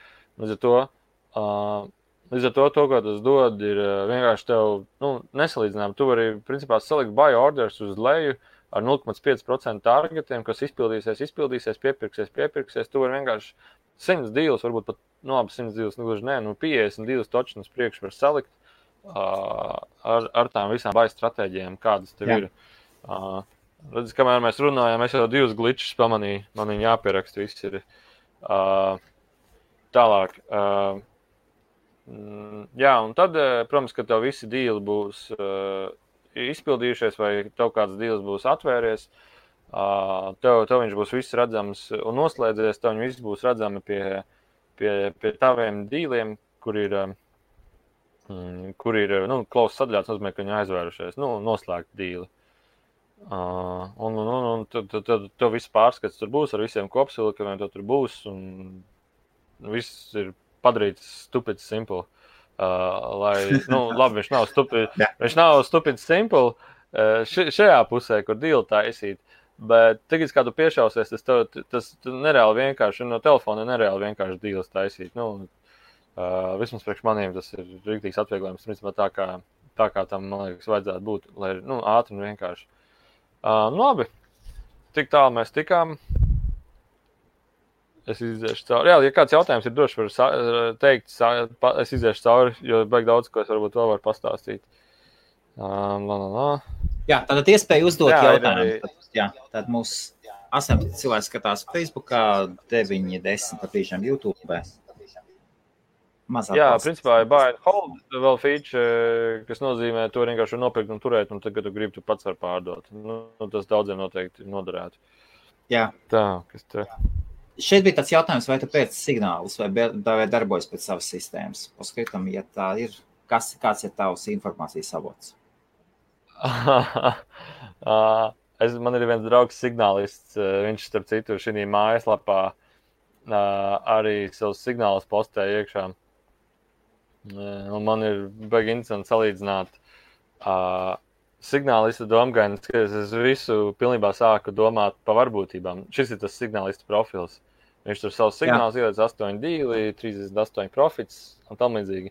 Speaker 2: Līdz ar to, ko tas dod, ir vienkārši tev nesalīdzinām. Tu vari, principā, salikt buy orders uz leju ar 0,5% targetiem, kas izpildīsies, piepirksies. Tu vari vienkārši 100 dīlus, varbūt pat, 100 dīlus, 50 dīlus točnas priekš var salikt ar tām visām buy stratēģijām, kādas tev ir. Redz, kamēr mēs runājām, es jau 2 glitches pamanīju, man viņi jāpieraksta, viss ir tālāk. Jā, un tad, protams, ka tev visi dīli būs izpildījušies vai tev kāds dīls būs atvērties, tev viņš būs viss redzams un noslēdzies, tev viņi viss būs redzami pie taviem dīliem, kur ir close sadļāts, nozīmē, ka viņi aizvērušies, noslēgt dīli. Un tev viss pārskats tur būs ar visiem kopsvilkumiem, tev tur būs un viss ir padarīts stupid simple. Labi, viņš nav stupid simple šajā pusē, kur dīli taisīt, bet tagad, kā tu piešausies, tas nereāli vienkārši, no telefona nereāli vienkārši dīlis taisīt. Vismaz priekš maniem tas ir rīktīgs atvieglojums, principā tā kā tam, man liekas, vajadzētu būt, lai ātri un vienkārši. Labi, tik tālu mēs tikām. Es iziešu cauri. Jā, ja kāds jautājums ir, droši var teikt, es iziešu cauri, jo baigi daudz, ko es varbūt vēl varu pastāstīt.
Speaker 1: Jā, tātad iespēja uzdot jautājumu. Tad mūs 18 cilvēki skatās Facebookā, 9-10 patīšām YouTube.
Speaker 2: Jā, principā ir buy and hold vēl feature, kas nozīmē, to vienkārši nopirkt un turēt, un tad, kad tu gribi, tu pats var pārdot. Tas daudziem noteikti noderētu.
Speaker 1: Jā.
Speaker 2: Tā, kas te?
Speaker 1: šeit bija tāds jautājums, vai tu pēc signālus vai darbojas pēc savas sistēmas. Paskatam, ja tā ir, kāds ir tavs informācijas avots?
Speaker 2: Man ir viens draugs signālists, viņš starp citu šī mājaslapā arī savus signālus postēja iekšā. Un man ir baigi interesanti salīdzināt signālistu domgainis, ka es visu pilnībā sāku domāt pa varbūtībām. Šis ir tas signālistu profils. Viņš tur savus signālus iedod 8-2, 38 profits un tam līdzīgi.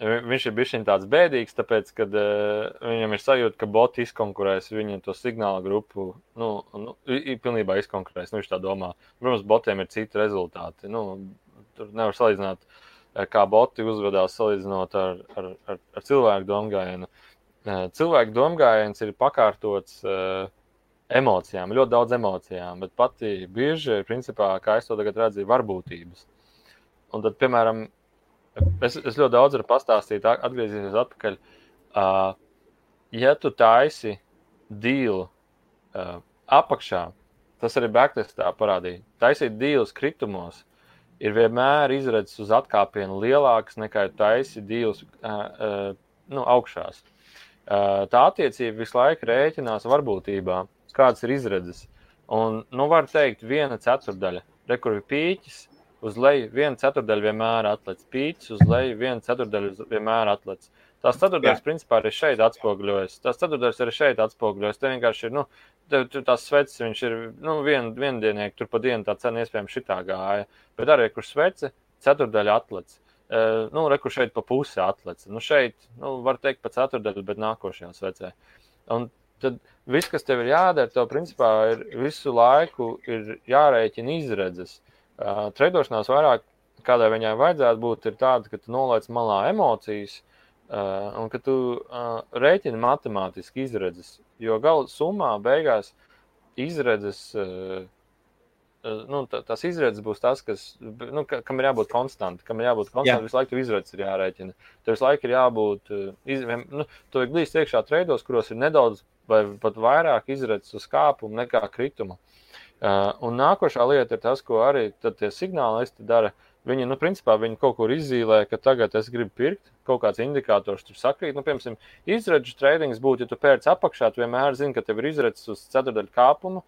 Speaker 2: Viņš ir bišķiņ tāds bēdīgs, tāpēc, kad viņam ir sajūta, ka boti izkonkurēs viņu to signāla grupu, pilnībā izkonkurēs, viņš tā domā. Protams, botiem ir citi rezultāti. Tur nevar salīdzināt, kā boti uzvedās salīdzinot ar cilvēku domgājienu. Cilvēku domgājiens ir pakārtots emocijām, ļoti daudz emocijām, bet pati bieži, principā, kā es to tagad redzu, varbūtības. Un tad, piemēram, es ļoti daudz varu pastāstīt, atgriezīsies atpakaļ. Ja tu taisi dīlu apakšā, tas arī backtestā parādīja, taisīt dīlus kritumos, ir vienmēr izredzes uz atkāpienu lielākas nekā taisi dīlus augšās. Tā attiecība visu laiku rēķinās varbūtībā, kādas ir izredzes. Un, var teikt, 1/4. Kur ir pīķis, uz leju 1/4 vienmēr atlec. Pīķis uz leju 1/4 vienmēr atlec. Tās ceturtdaļas principā arī šeit atspoguļojas. Tās ceturtdaļas arī šeit atspoguļojas. Te vienkārši ir, tās sveces, viņš ir, viendienieki, tur pa dienu tā cena iespējams šitā gāja. Bet arī, kur svece, ceturtdaļa atlec. Kur šeit pa pusi atlec. Šeit, var teikt pa ceturtdaļu, bet nākošajā svecē. Un tad viss, kas tev ir jādara, tev principā ir visu laiku ir jārēķina izredzes. Treidošanās vairāk, kādai viņai vajadzētu būt, ir tāda, ka tu nolaic malā emocijas un ka tu rēķini matemātiski izredzes. Jo gala summā beigās izredzes, tās izredzes būs tas, kas, kam ir jābūt konstanti. Visu laiku tev izredzes ir jārēķina. Tev visu laiku ir jābūt, tu vajag glīst iekšā treidos, kuros ir nedaudz vai pat vairāk izredzes uz kāpumu nekā krituma. Un nākošā lieta ir tas, ko arī tie signālisti dara. Viņi, principā, viņi kaut kur izzīlē, ka tagad es gribu pirkt, kaut kāds indikators tur sakrīt. Piemēram, izredžu treidings būtu, ja tu pērc apakšā, tu vienmēr zini, ka tev ir izredzes uz ceturdaļu kāpumu,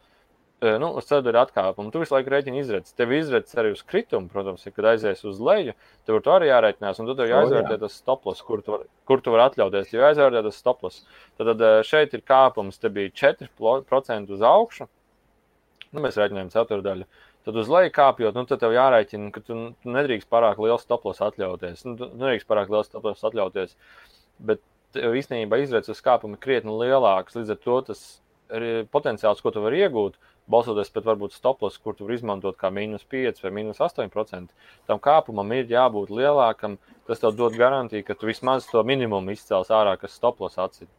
Speaker 2: uz ceturdaļu atkāpumu. Tu visu laiku rēķini izredzes. Tev izredzes arī uz kritumu, protams, ja kad aizies uz leju, tev to arī jārēķinās, un tu tev jāizvērtē tas stoploss, kur tu vari atļauties. Ja jāizvērtē tas stoploss, tad šeit ir kāpums, te bija 4% uz augšu. Mēs rēķinājām ceturdaļu. Tad uz leju kāpjot, tad tev jārēķina, ka tu nedrīkst pārāk liels stoploss atļauties. Bet īstenībā izredzes uz kāpumu ir krietni lielāks. Līdz ar to tas potenciāls, ko tu vari iegūt, balsoties pēc varbūt stoploss, kur tu vari izmantot kā -5 vai -8%, tam kāpumam ir jābūt lielākam. Tas tev dod garantiju, ka tu vismaz to minimumu izcels ārā, kas stoploss atsit.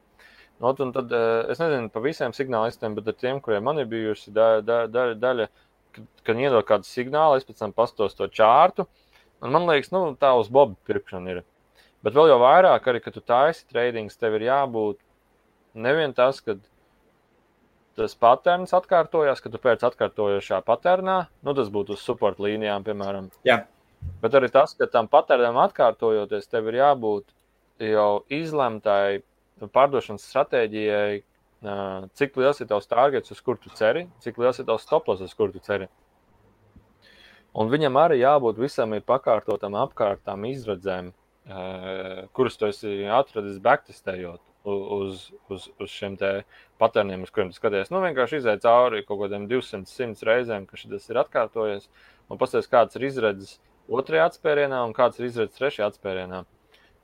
Speaker 2: Un tad, es nezinu pa visiem signālistiem, bet ar tiem, kuriem man ir bijusi daļa, kad iedod kādu signālu, es pēc tam pastos to čārtu, un man liekas, tā uz bobu pirkšana ir. Bet vēl jau vairāk arī, kad tu taisi treidings, tev ir jābūt nevien tas, kad tas paterns atkārtojās, kad tu pēc atkārtojošā paternā, tas būtu uz support līnijām, piemēram.
Speaker 1: Jā.
Speaker 2: Bet arī tas, ka tam paternam atkārtojoties, tev ir jābūt jau izlemtai pārdošanas stratēģijai, cik liels ir tavs targets, uz kur tu ceri, cik liels ir tavs stoploss, uz kur tu ceri. Un viņam arī jābūt visam ir pakārtotam apkārtām izredzēm, kuras tu esi atradis backtestējot uz šiem te paterniem, uz kuriem tu skaties. Vienkārši izēj cauri kaut kādiem 200-100 reizēm, ka šis ir atkārtojies, un pasties, kāds ir izredzes otrajā atspērienā un kāds ir izredzes trešajā atspērienā.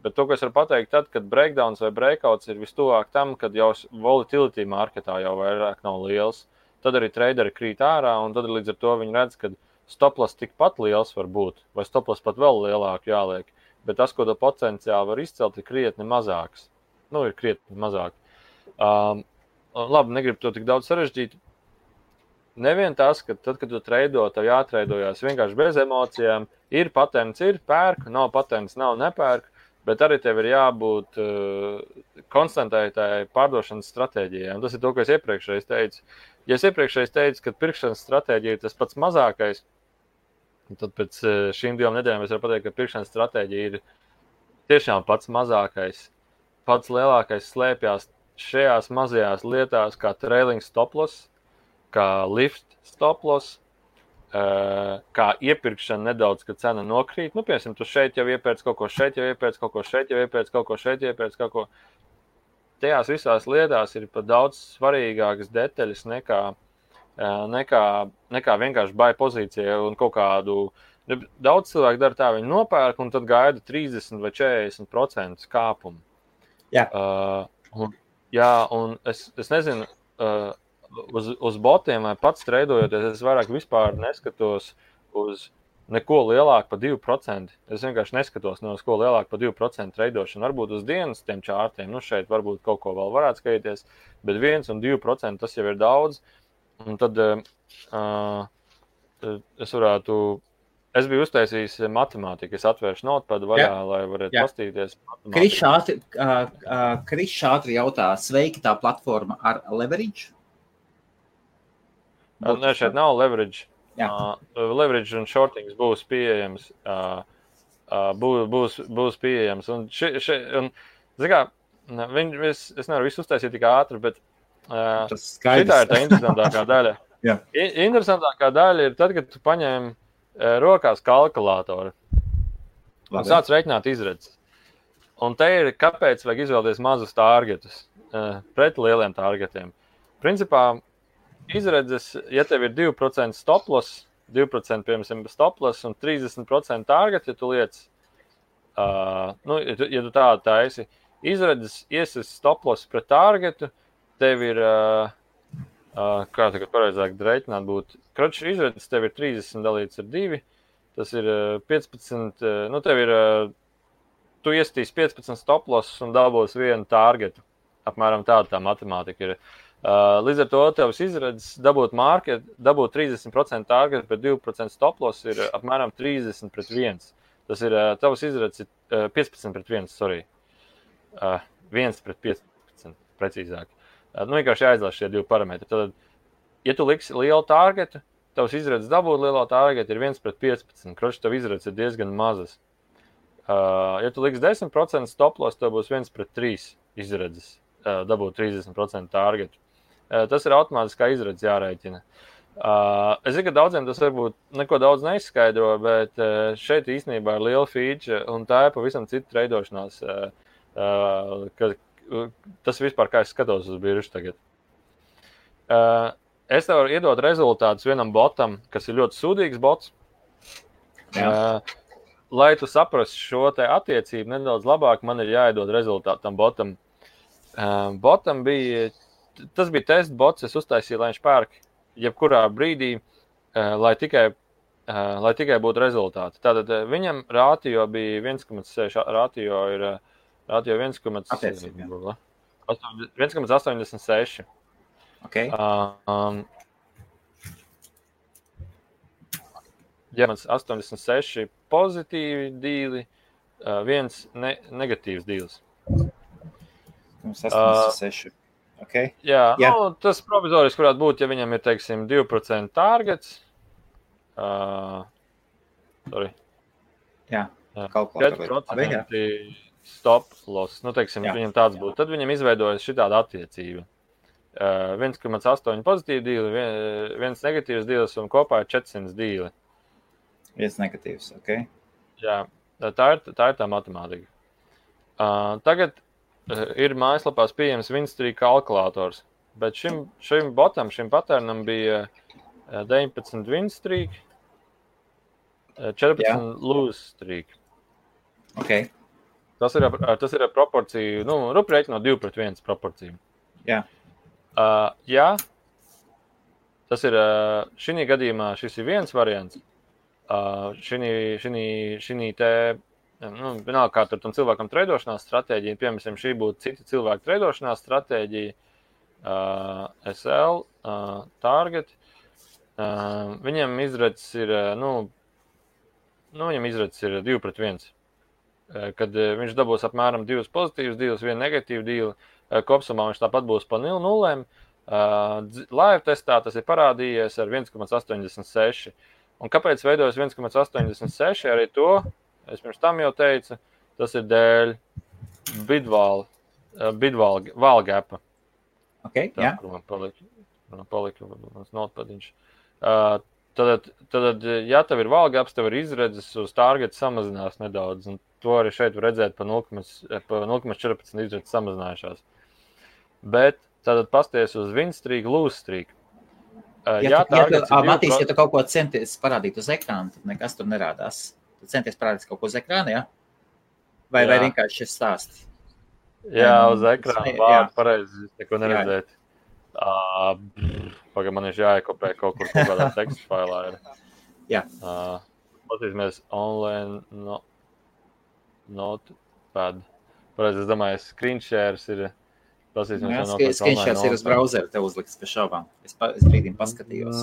Speaker 2: Bet to, ko es varu pateikt, tad, kad breakdowns vai breakouts ir vistuvāk tam, kad jau volatility marketā jau vairāk nav liels, tad arī traderi krīt ārā, un tad līdz ar to viņi redz, ka stoploss tikpat liels var būt, vai stoploss pat vēl lielāk jāliek, bet tas, ko to potenciāli var izcelt, ir krietni mazāks. Ir krietni mazāk. Labi, negribu to tik daudz sarežģīt. Nevien tas, ka tad, kad tu treido, tev jātreidojās vienkārši bez emocijām, ir patents, ir pērk, nav patents, nav nepērk, bet arī tev ir jābūt konstantai pārdošanas stratēģijai. Un tas ir to, ko es iepriekšreiz teicu. Ja es iepriekšējais teicu, ka pirkšanas stratēģija ir tas pats mazākais, tad pēc šīm 2 nedēļām es varu pateikt, ka pirkšanas stratēģija ir tiešām pats mazākais. Pats lielākais slēpjas šajās mazajās lietās, kā trailing stop loss, kā lift stop loss, kā iepirkšana nedaudz, kad cena nokrīt. Nu, piemēram, tu šeit jau iepērc kaut ko, šeit jau iepērc kaut ko, šeit jau iepērc kaut ko, šeit jau iepērc kaut ko. Tajās visās lietās ir pat daudz svarīgākas detaļas nekā vienkārši buy pozīcija un kaut kādu. Daudz cilvēku dara tā, viņi nopērk un tad gaida 30 vai 40% kāpumu.
Speaker 1: Jā.
Speaker 2: Un es nezinu, uz botiem vai pats treidojoties, es vairāk vispār neskatos uz neko lielāku par 2%. Es vienkārši neskatos ne uz ko lielāku par 2% treidošanu. Varbūt uz dienas tiem čārtiem, šeit varbūt kaut ko vēl varētu skatīties, bet 1 un 2% tas jau ir daudz. Un tad es biju uztaisījis matemātiku, es atvēršu notepadu vaļā, lai varētu pastīties.
Speaker 1: Krišs ātri jautā, sveiki tā platforma ar leverage?
Speaker 2: Nē, šeit nav leverage. Leverage un shortings būs pieejams. Būs pieejams. Un es nevaru visu uztaisīt tik ātri, bet šitā ir tā interesantākā daļa. Interesantākā daļa ir tad, kad tu paņem rokās kalkulātoru un sāc reiķināt izredzes. Un te ir, kāpēc vajag izvēlēties mazus targetus pret lieliem targetiem. Principā, izredzes, ja tev ir 2% stop loss, 2% piemēram stop loss un 30% target, ja tu liec, ja tu tādu taisi, izredzes iesis stop loss pret targetu, tev ir, kā tagad pareizāk reiķināt būtu, kroču izredzes tev ir 30 dalīts ar 2, tas ir 15, tev ir, tu iestīs 15 stop loss un dabūs vienu targetu, apmēram tāda tā matemātika ir. Līdz ar to tevs izredzes dabūt 30% target, bet 2% stop loss ir apmēram 30 pret 1. Tas ir tevs izredzes 15 pret 1, sorry. 1 pret 15, precīzāk. Vienkārši jāizlaiž šie 2 parametri. Tad, ja tu liksi lielu targetu, tevs izredzes dabūt lielo targetu ir 1 pret 15. Kroči, tev izredzes ir diezgan mazas. Ja tu liksi 10% stop loss, tev būs 1 pret 3 izredzes dabūt 30% targetu. Tas ir automātiskā izredzes jārēķina. Es zinu, ka daudziem tas varbūt neko daudz neizskaidro, bet šeit īstenībā ir liela feature, un tā ir pavisam cita treidošanās. Tas vispār, kā es skatos uz biržu tagad. Es tev varu iedot rezultātus vienam botam, kas ir ļoti sūdīgs bots. Lai tu saprastu šo te attiecību nedaudz labāk, man ir jāiedod rezultātu tam botam. Botam bija... Tas bija test bots, es uztaisīju, lai viņš pērk jebkurā brīdī, lai tikai būtu rezultāti. Tātad viņam rātio bija 1,6, rātio ir 1,86.
Speaker 1: Okay.
Speaker 2: Ja man 86 pozitīvi dīli, viens negatīvs dīls.
Speaker 1: 86. Okay.
Speaker 2: Jā. Tas provizoriski varētu būt, ja viņam ir, teiksim, 2% targets.
Speaker 1: Kalkulātori.
Speaker 2: 4% stop loss. Teiksim, viņam tāds būtu. Tad viņam izveidojas šitāda attiecība. 1,8 pozitīvi dīli, 1 negatīvs dīlis un kopā ir 400 dīli.
Speaker 1: 1 negatīvs, ok. Jā,
Speaker 2: tā ir tā matemātika. Tagad ir mājaslapās pieejams Winstreak kalkulators, bet šim botam, šim patternam bija 19 Winstreak, 14 lose streak.
Speaker 1: Ok.
Speaker 2: Tas ir proporcija, rēķinot 2 pret 1 proporciju.
Speaker 1: Jā.
Speaker 2: Jā, tas ir, šī gadījumā šis ir viens variants. Šī te, vienalga, kā tur tam cilvēkam treidošanās stratēģija, piemēram, šī būtu cita cilvēka treidošanās stratēģija, SL, target, viņam izredzes ir, viņam izredzes ir 2 pret 1, kad viņš dabūs apmēram 2 pozitīvus dīlus, 1 negatīvu dīlu, kopsumā viņš tāpat būs pa 0, Live testā tas ir parādījies ar 1,86. Un kāpēc veidojas 1,86? Arī to, es pirms tam jau teicu, tas ir dēļ bidval gapa.
Speaker 1: Okay,
Speaker 2: tā, kur man palika mans notpadiņš. Tad, ja tev ir valgaps, tev ir izredzes uz targetu samazinās nedaudz, un to arī šeit var redzēt pa 0,14 izredzes samazinājušās. Bet tad pasties uz win streak, lose streak.
Speaker 1: Matīs, ja tu kaut ko centies parādīt uz ekrāna, tad nekas tur nerādās. Tu centies parādīt kaut ko uz ekrāna, ja? Vai vienkārši šis stāsts?
Speaker 2: Jā, uz ekrāna vārdu pareizi neko neredzēt. Pagaid, man ir jāiekopē kaut kādā teksta failā.
Speaker 1: Jā.
Speaker 2: Patīsimies online notepad. Pareizi, es domāju, screenshares ir.
Speaker 1: Screenshares ir uz browsera, tev uzliks pie šaubām. Es brīdim paskatījos.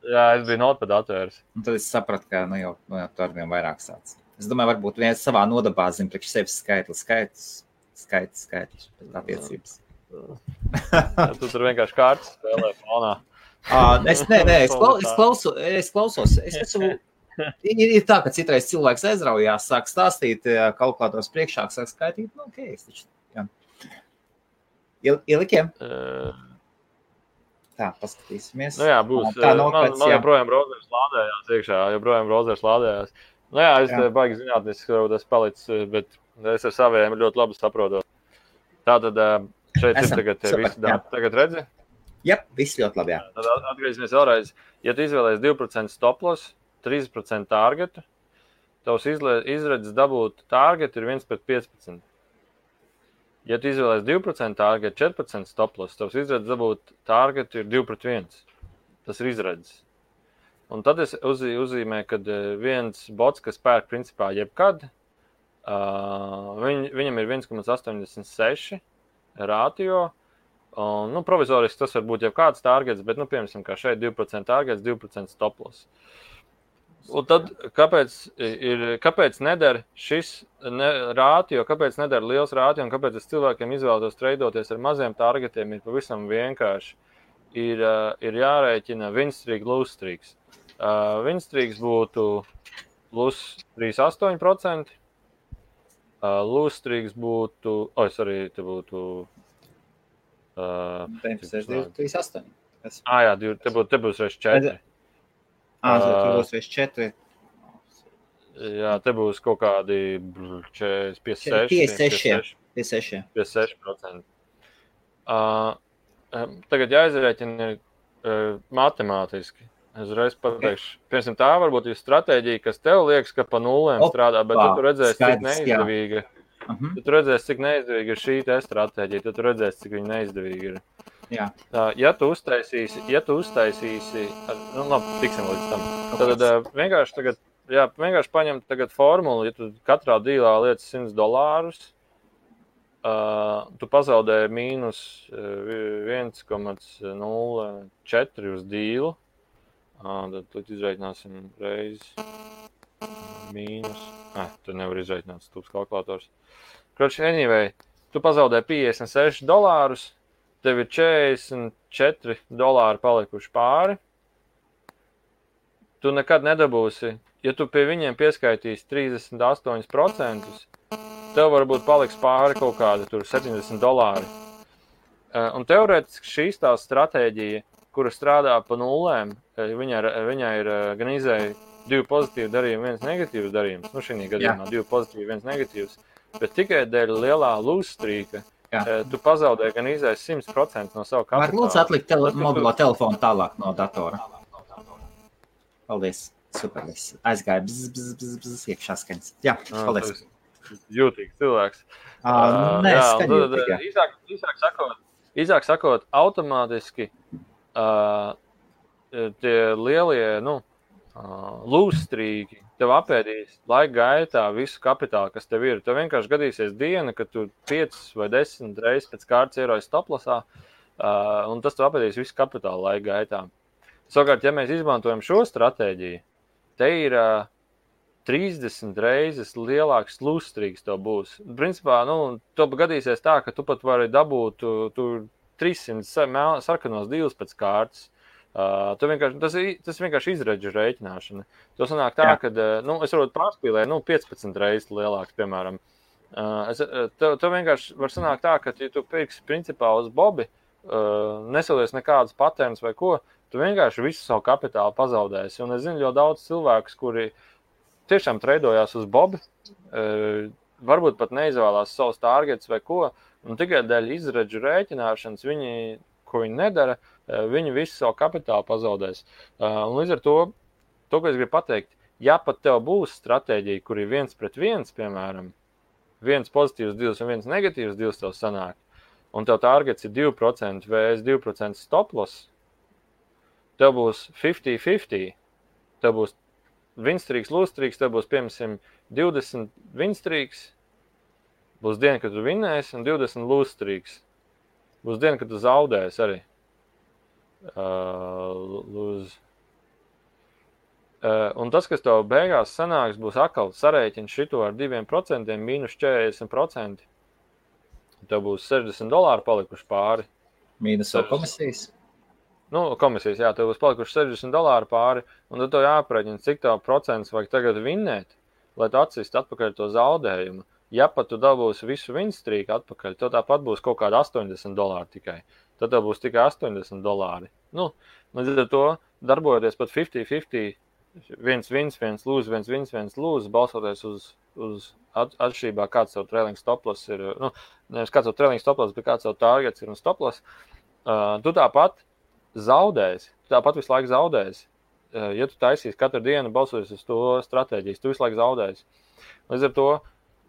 Speaker 2: Jā, es biju notepad atvērs.
Speaker 1: Un tad es sapratu, ka jau tu ar vien vairāk sāc. Es domāju, varbūt viens savā nodabā zina priekš sevis skaitlis pēc attiecības.
Speaker 2: Tu tur vienkārši kārtas spēlē fonā.
Speaker 1: Es klausos. Ir tā, ka citreiz cilvēks aizraujās, sāk stāstīt, kalkulators priekšā, sāk skaitīt. Nu, ok, es taču, jā. Ielikiem? Tā, paskatīsimies.
Speaker 2: Nu jā, būs. Man joprojām browsers lādējās iekšā, Nu jā, es baigi zinātniski, varbūt es palicis, bet es ar saviem ļoti labi saprotu. Tātad šeit ir tagad visi dati. Tagad redzi?
Speaker 1: Jā, viss ļoti labi, jā.
Speaker 2: Tad atgriezīsimies vēlreiz. Ja tu izvēlēsi 2% stop loss, 3% targetu, tavs izredzes dabūt targetu ir 1/15. Ja tu izvēlēsi 2% targetu, 4% stop loss, tavs izredzes dabūt targetu ir 2/1. Tas ir izredzes. Un tad es uzzīmēju, ka viens bots, kas pērk principā jebkad, viņam ir 1,86 rātio. Nu, provizoriski tas var būt jau kāds targets, bet, piemēram, kā šeit 2% targets, 2% stop loss. Un tad, kāpēc neder šis rātio, kāpēc neder liels rātio, un kāpēc es cilvēkiem izvēlētos treidoties ar maziem targetiem, ir pavisam vienkārši. Ir jārēķina win streak, lose streaks. Win streaks būtu plus 3,8%. Lose streaks būtu, te būtu
Speaker 1: 3,8.
Speaker 2: Jā, te būs reiz 4.
Speaker 1: Tur būs reiz 4.
Speaker 2: Jā, te būs kaut kādi 56%. Tagad jāizrēķina matemātiski. Es reiz pateikšu, piemēram, tā varbūt ir stratēģija, kas tev liekas, ka pa nulēm strādā, bet tu redzēsi, cik neizdevīga. Tu redzēsi, cik neizdevīga ir šī te stratēģija, tu redzēsi, cik viņa neizdevīga ir.
Speaker 1: Jā.
Speaker 2: Ja tu uztaisīsi, tiksim līdz tam. Tad vienkārši paņem tagad formulu, ja tu katrā dīlā liec $100, tu pazaudēji mīnus 1,04 uz dīlu. Tad izreikināsim reizi mīnus. Tu nevar izreikināt stūps kalkulators. Anyway, tu pazaudēji $56, tev ir $44 palikuši pāri. Tu nekad nedabūsi, ja tu pie viņiem pieskaitīsi 38%, tev varbūt paliks pāri kaut kādi tur $70. Un teorētiski šīs tās stratēģija, kura strādā pa nulēm, viņai ir gan izēja 2 pozitīvi darījumi, 1 negatīvs darījums. Šī gadījumā 2 pozitīvi, 1 negatīvs. Bet tikai dēļ lielā lose streaka tu pazaudēji gan izēja 100% no savu kapitālu.
Speaker 1: Var lūdzu atlikt mobilo telefonu tālāk no datora. Paldies. Super. Aizgāja bzz, iekšā skaņas. Jā, paldies.
Speaker 2: Jūtīgs cilvēks.
Speaker 1: Nē, skaņotīgi.
Speaker 2: Īsāk sakot, automātiski tie lielie, lose streaki tev apēdīs laika gaitā visu kapitālu, kas tev ir. Tev vienkārši gadīsies diena, kad tu 5 vai 10 reizes pēc kārtas ieroji stoplasā, un tas tev apēdīs visu kapitālu laika gaitā. Savukārt, ja mēs izmantojam šo stratēģiju, te ir 30 reizes lielāks lose streaks tev būs. Principā, tev gadīsies tā, ka tu pat vari dabūt, tu 300 sarkanos divus pēc kārtas. Tas vienkārši izredžu rēķināšana. To sanāk tā, ka es varbūt pārspīlēju 15 reizes lielāks, piemēram. To vienkārši var sanākt tā, ka, ja tu pirksi principā uz Bobi, nesalies nekādas patērnas vai ko, tu vienkārši visu savu kapitālu pazaudēsi. Un es zinu ļoti daudz cilvēkus, kuri tiešām treidojās uz Bobi, varbūt pat neizvēlās savus targets vai ko, un tikai dēļ izredžu rēķināšanas ko viņi nedara, viņi visu savu kapitālu pazaudēs. Un līdz ar to, ko es gribu pateikt, ja pat tev būs stratēģija, kur ir 1-1, piemēram, 1 pozitīvs divs un 1 negatīvs divs tev sanāk, un tev targets ir 2% vs 2% stop loss, tev būs 50-50, tev būs winstrīks, lūstrīks, tev būs, piemēram, 20 winstrīks, būs diena, kad tu vinnēsi, un 20 lūstrīks. Būs diena, kad tu zaudēsi arī. Un tas, kas tev beigās sanāks, būs atkal sarēķins šito ar 2%, mīnus 40%. Tev būs $60 palikuši pāri.
Speaker 1: Mīnus vēl komisijas?
Speaker 2: Komisijas, jā, tev būs palikuši $60 pāri, un tad tev jāaprēķina, cik tev procents vajag tagad vinnēt, lai tu atsist atpakaļ to zaudējumu. Ja pat tu dabūsi visu winstrīku atpakaļ, tev tāpat būs kaut kāda $80 tikai. Tad tev būs tikai $80. Līdz ar to darbojoties pat 50-50, viens wins, viens lose, viens wins, viens lose, balsoties uz atšķirībā, kāds savu trailing stop loss ir, nevis kāds savu trailing stop loss, bet kāds savu targets ir un stop loss, tu tāpat zaudēsi, tu tāpat visu laiku zaudēsi. Ja tu taisīsi katru dienu balsoties uz to stratēģijas, tu visu laiku zaudēsi. Līdz ar to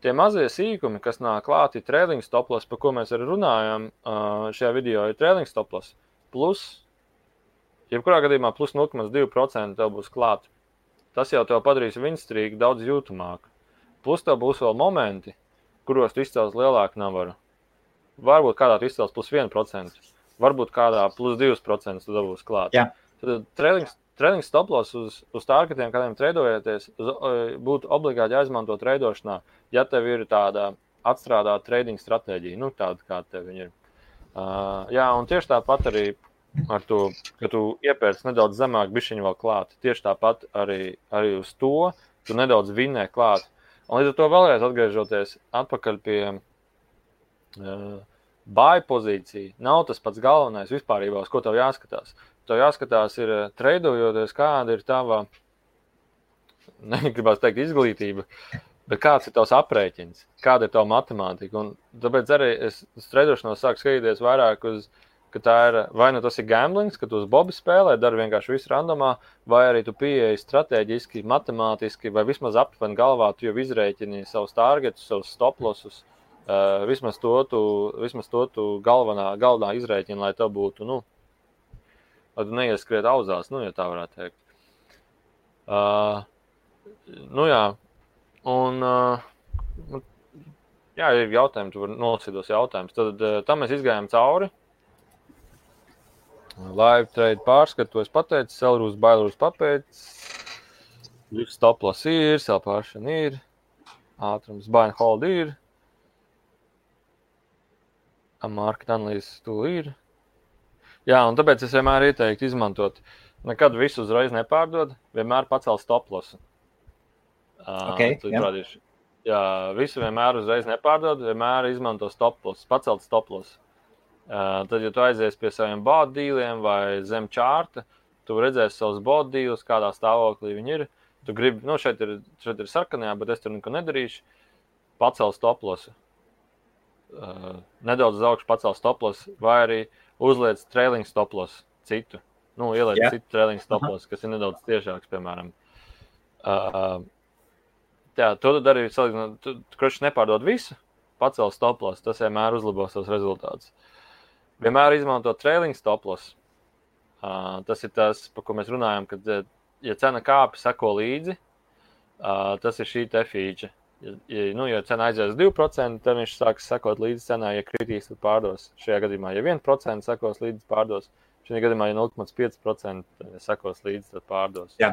Speaker 2: tie mazie sīkumi, kas nāk klāti trailing stop loss, par ko mēs arī runājam šajā video, ir trailing stop loss. Plus, jebkurā gadījumā plus 0,2% tev būs klāt. Tas jau tev padarīs winstrīku daudz jūtamāku. Plus tev būs vēl momenti, kuros tu izcels lielāku navaru. Varbūt kādā tu izcels plus 1%, varbūt kādā plus 2% tu dabūs klāt.
Speaker 1: Jā.
Speaker 2: Tad trailing stop loss uz targetiem, kādiem treidojieties, būtu obligāti jāizmanto treidošanā, ja tev ir tāda atstrādāta trading stratēģija, tāda, kā tev viņa ir. Un tieši tāpat arī ar to, ka tu iepērci nedaudz zemāk bišķiņu vēl klāt. Tieši tāpat arī uz to tu nedaudz vinnē klāt. Un līdz ar to vēlreiz atgriežoties atpakaļ pie buy pozīcija, nav tas pats galvenais vispārībā, uz ko tev jāskatās. Tev jāskatās ir treidojoties, kāda ir tava, negribās teikt izglītība, bet kāds ir tavs aprēķins, kāda ir tava matemātika. Un tāpēc arī es treidošanos sāku skatīties vairāk uz, ka tā ir, vai nu tas ir gamblings, ka tu uz Bobi spēlē, dari vienkārši visu randomā, vai arī tu pieeji strateģiski, matemātiski, vai vismaz aptuveni galvā tu jau izrēķini savus targetus, savus stop lossus, vismaz to tu galvenā izrēķini, lai tev būtu, lai tu neieskriet auzās, ja tā varētu teikt. Ir jautājumi, tu vari nolasīt tos jautājumus. Tad tam mēs izgājām cauri. Live trade pārskatu, es pateicu, Selrūs, Bailrūs papēc, stop loss ir, sell pāršana ir, ātrums, buy and hold ir, market analysis tool ir. Jā, un tāpēc es vienmēr ieteiktu izmantot, nekad visu uzreiz nepārdod, vienmēr pacelt stop lossu. Jā, visu vienmēr uzreiz nepārdod, vienmēr izmanto stop loss, pacelt stop loss. Tad, ja tu aizies pie saviem bot dīliem vai zem čārta, tu redzēsi savus bot dīlus, kādā stāvoklī viņi ir. Tu gribi, šeit ir sarkanajā, bet es tur neko nedarīšu. Pacel stop lossu. Nedaudz uz augšu pacel stop lossu, vai arī uzliec trailing stop lossu citu. Ieliec citu trailing stop lossu, kas ir nedaudz tiešāks, piemēram. To tu dari, tu kroši nepārdod visu, pacel stop lossu, tas vienmēr uzlabos savus rezultātus. Vienmēr izmanto trailing stop loss. Tas ir tas, par ko mēs runājam, kad, ja cena kāpi sako līdzi, tas ir šī te feature. Ja cena aizies 2%, tad viņš sāks sakot līdzi cenā, ja kritīs, tad pārdos. Šajā gadījumā, ja 1% sakos līdzi, pārdos. Šajā gadījumā, ja 0,5% sakos līdzi, tad pārdos.
Speaker 1: Jā.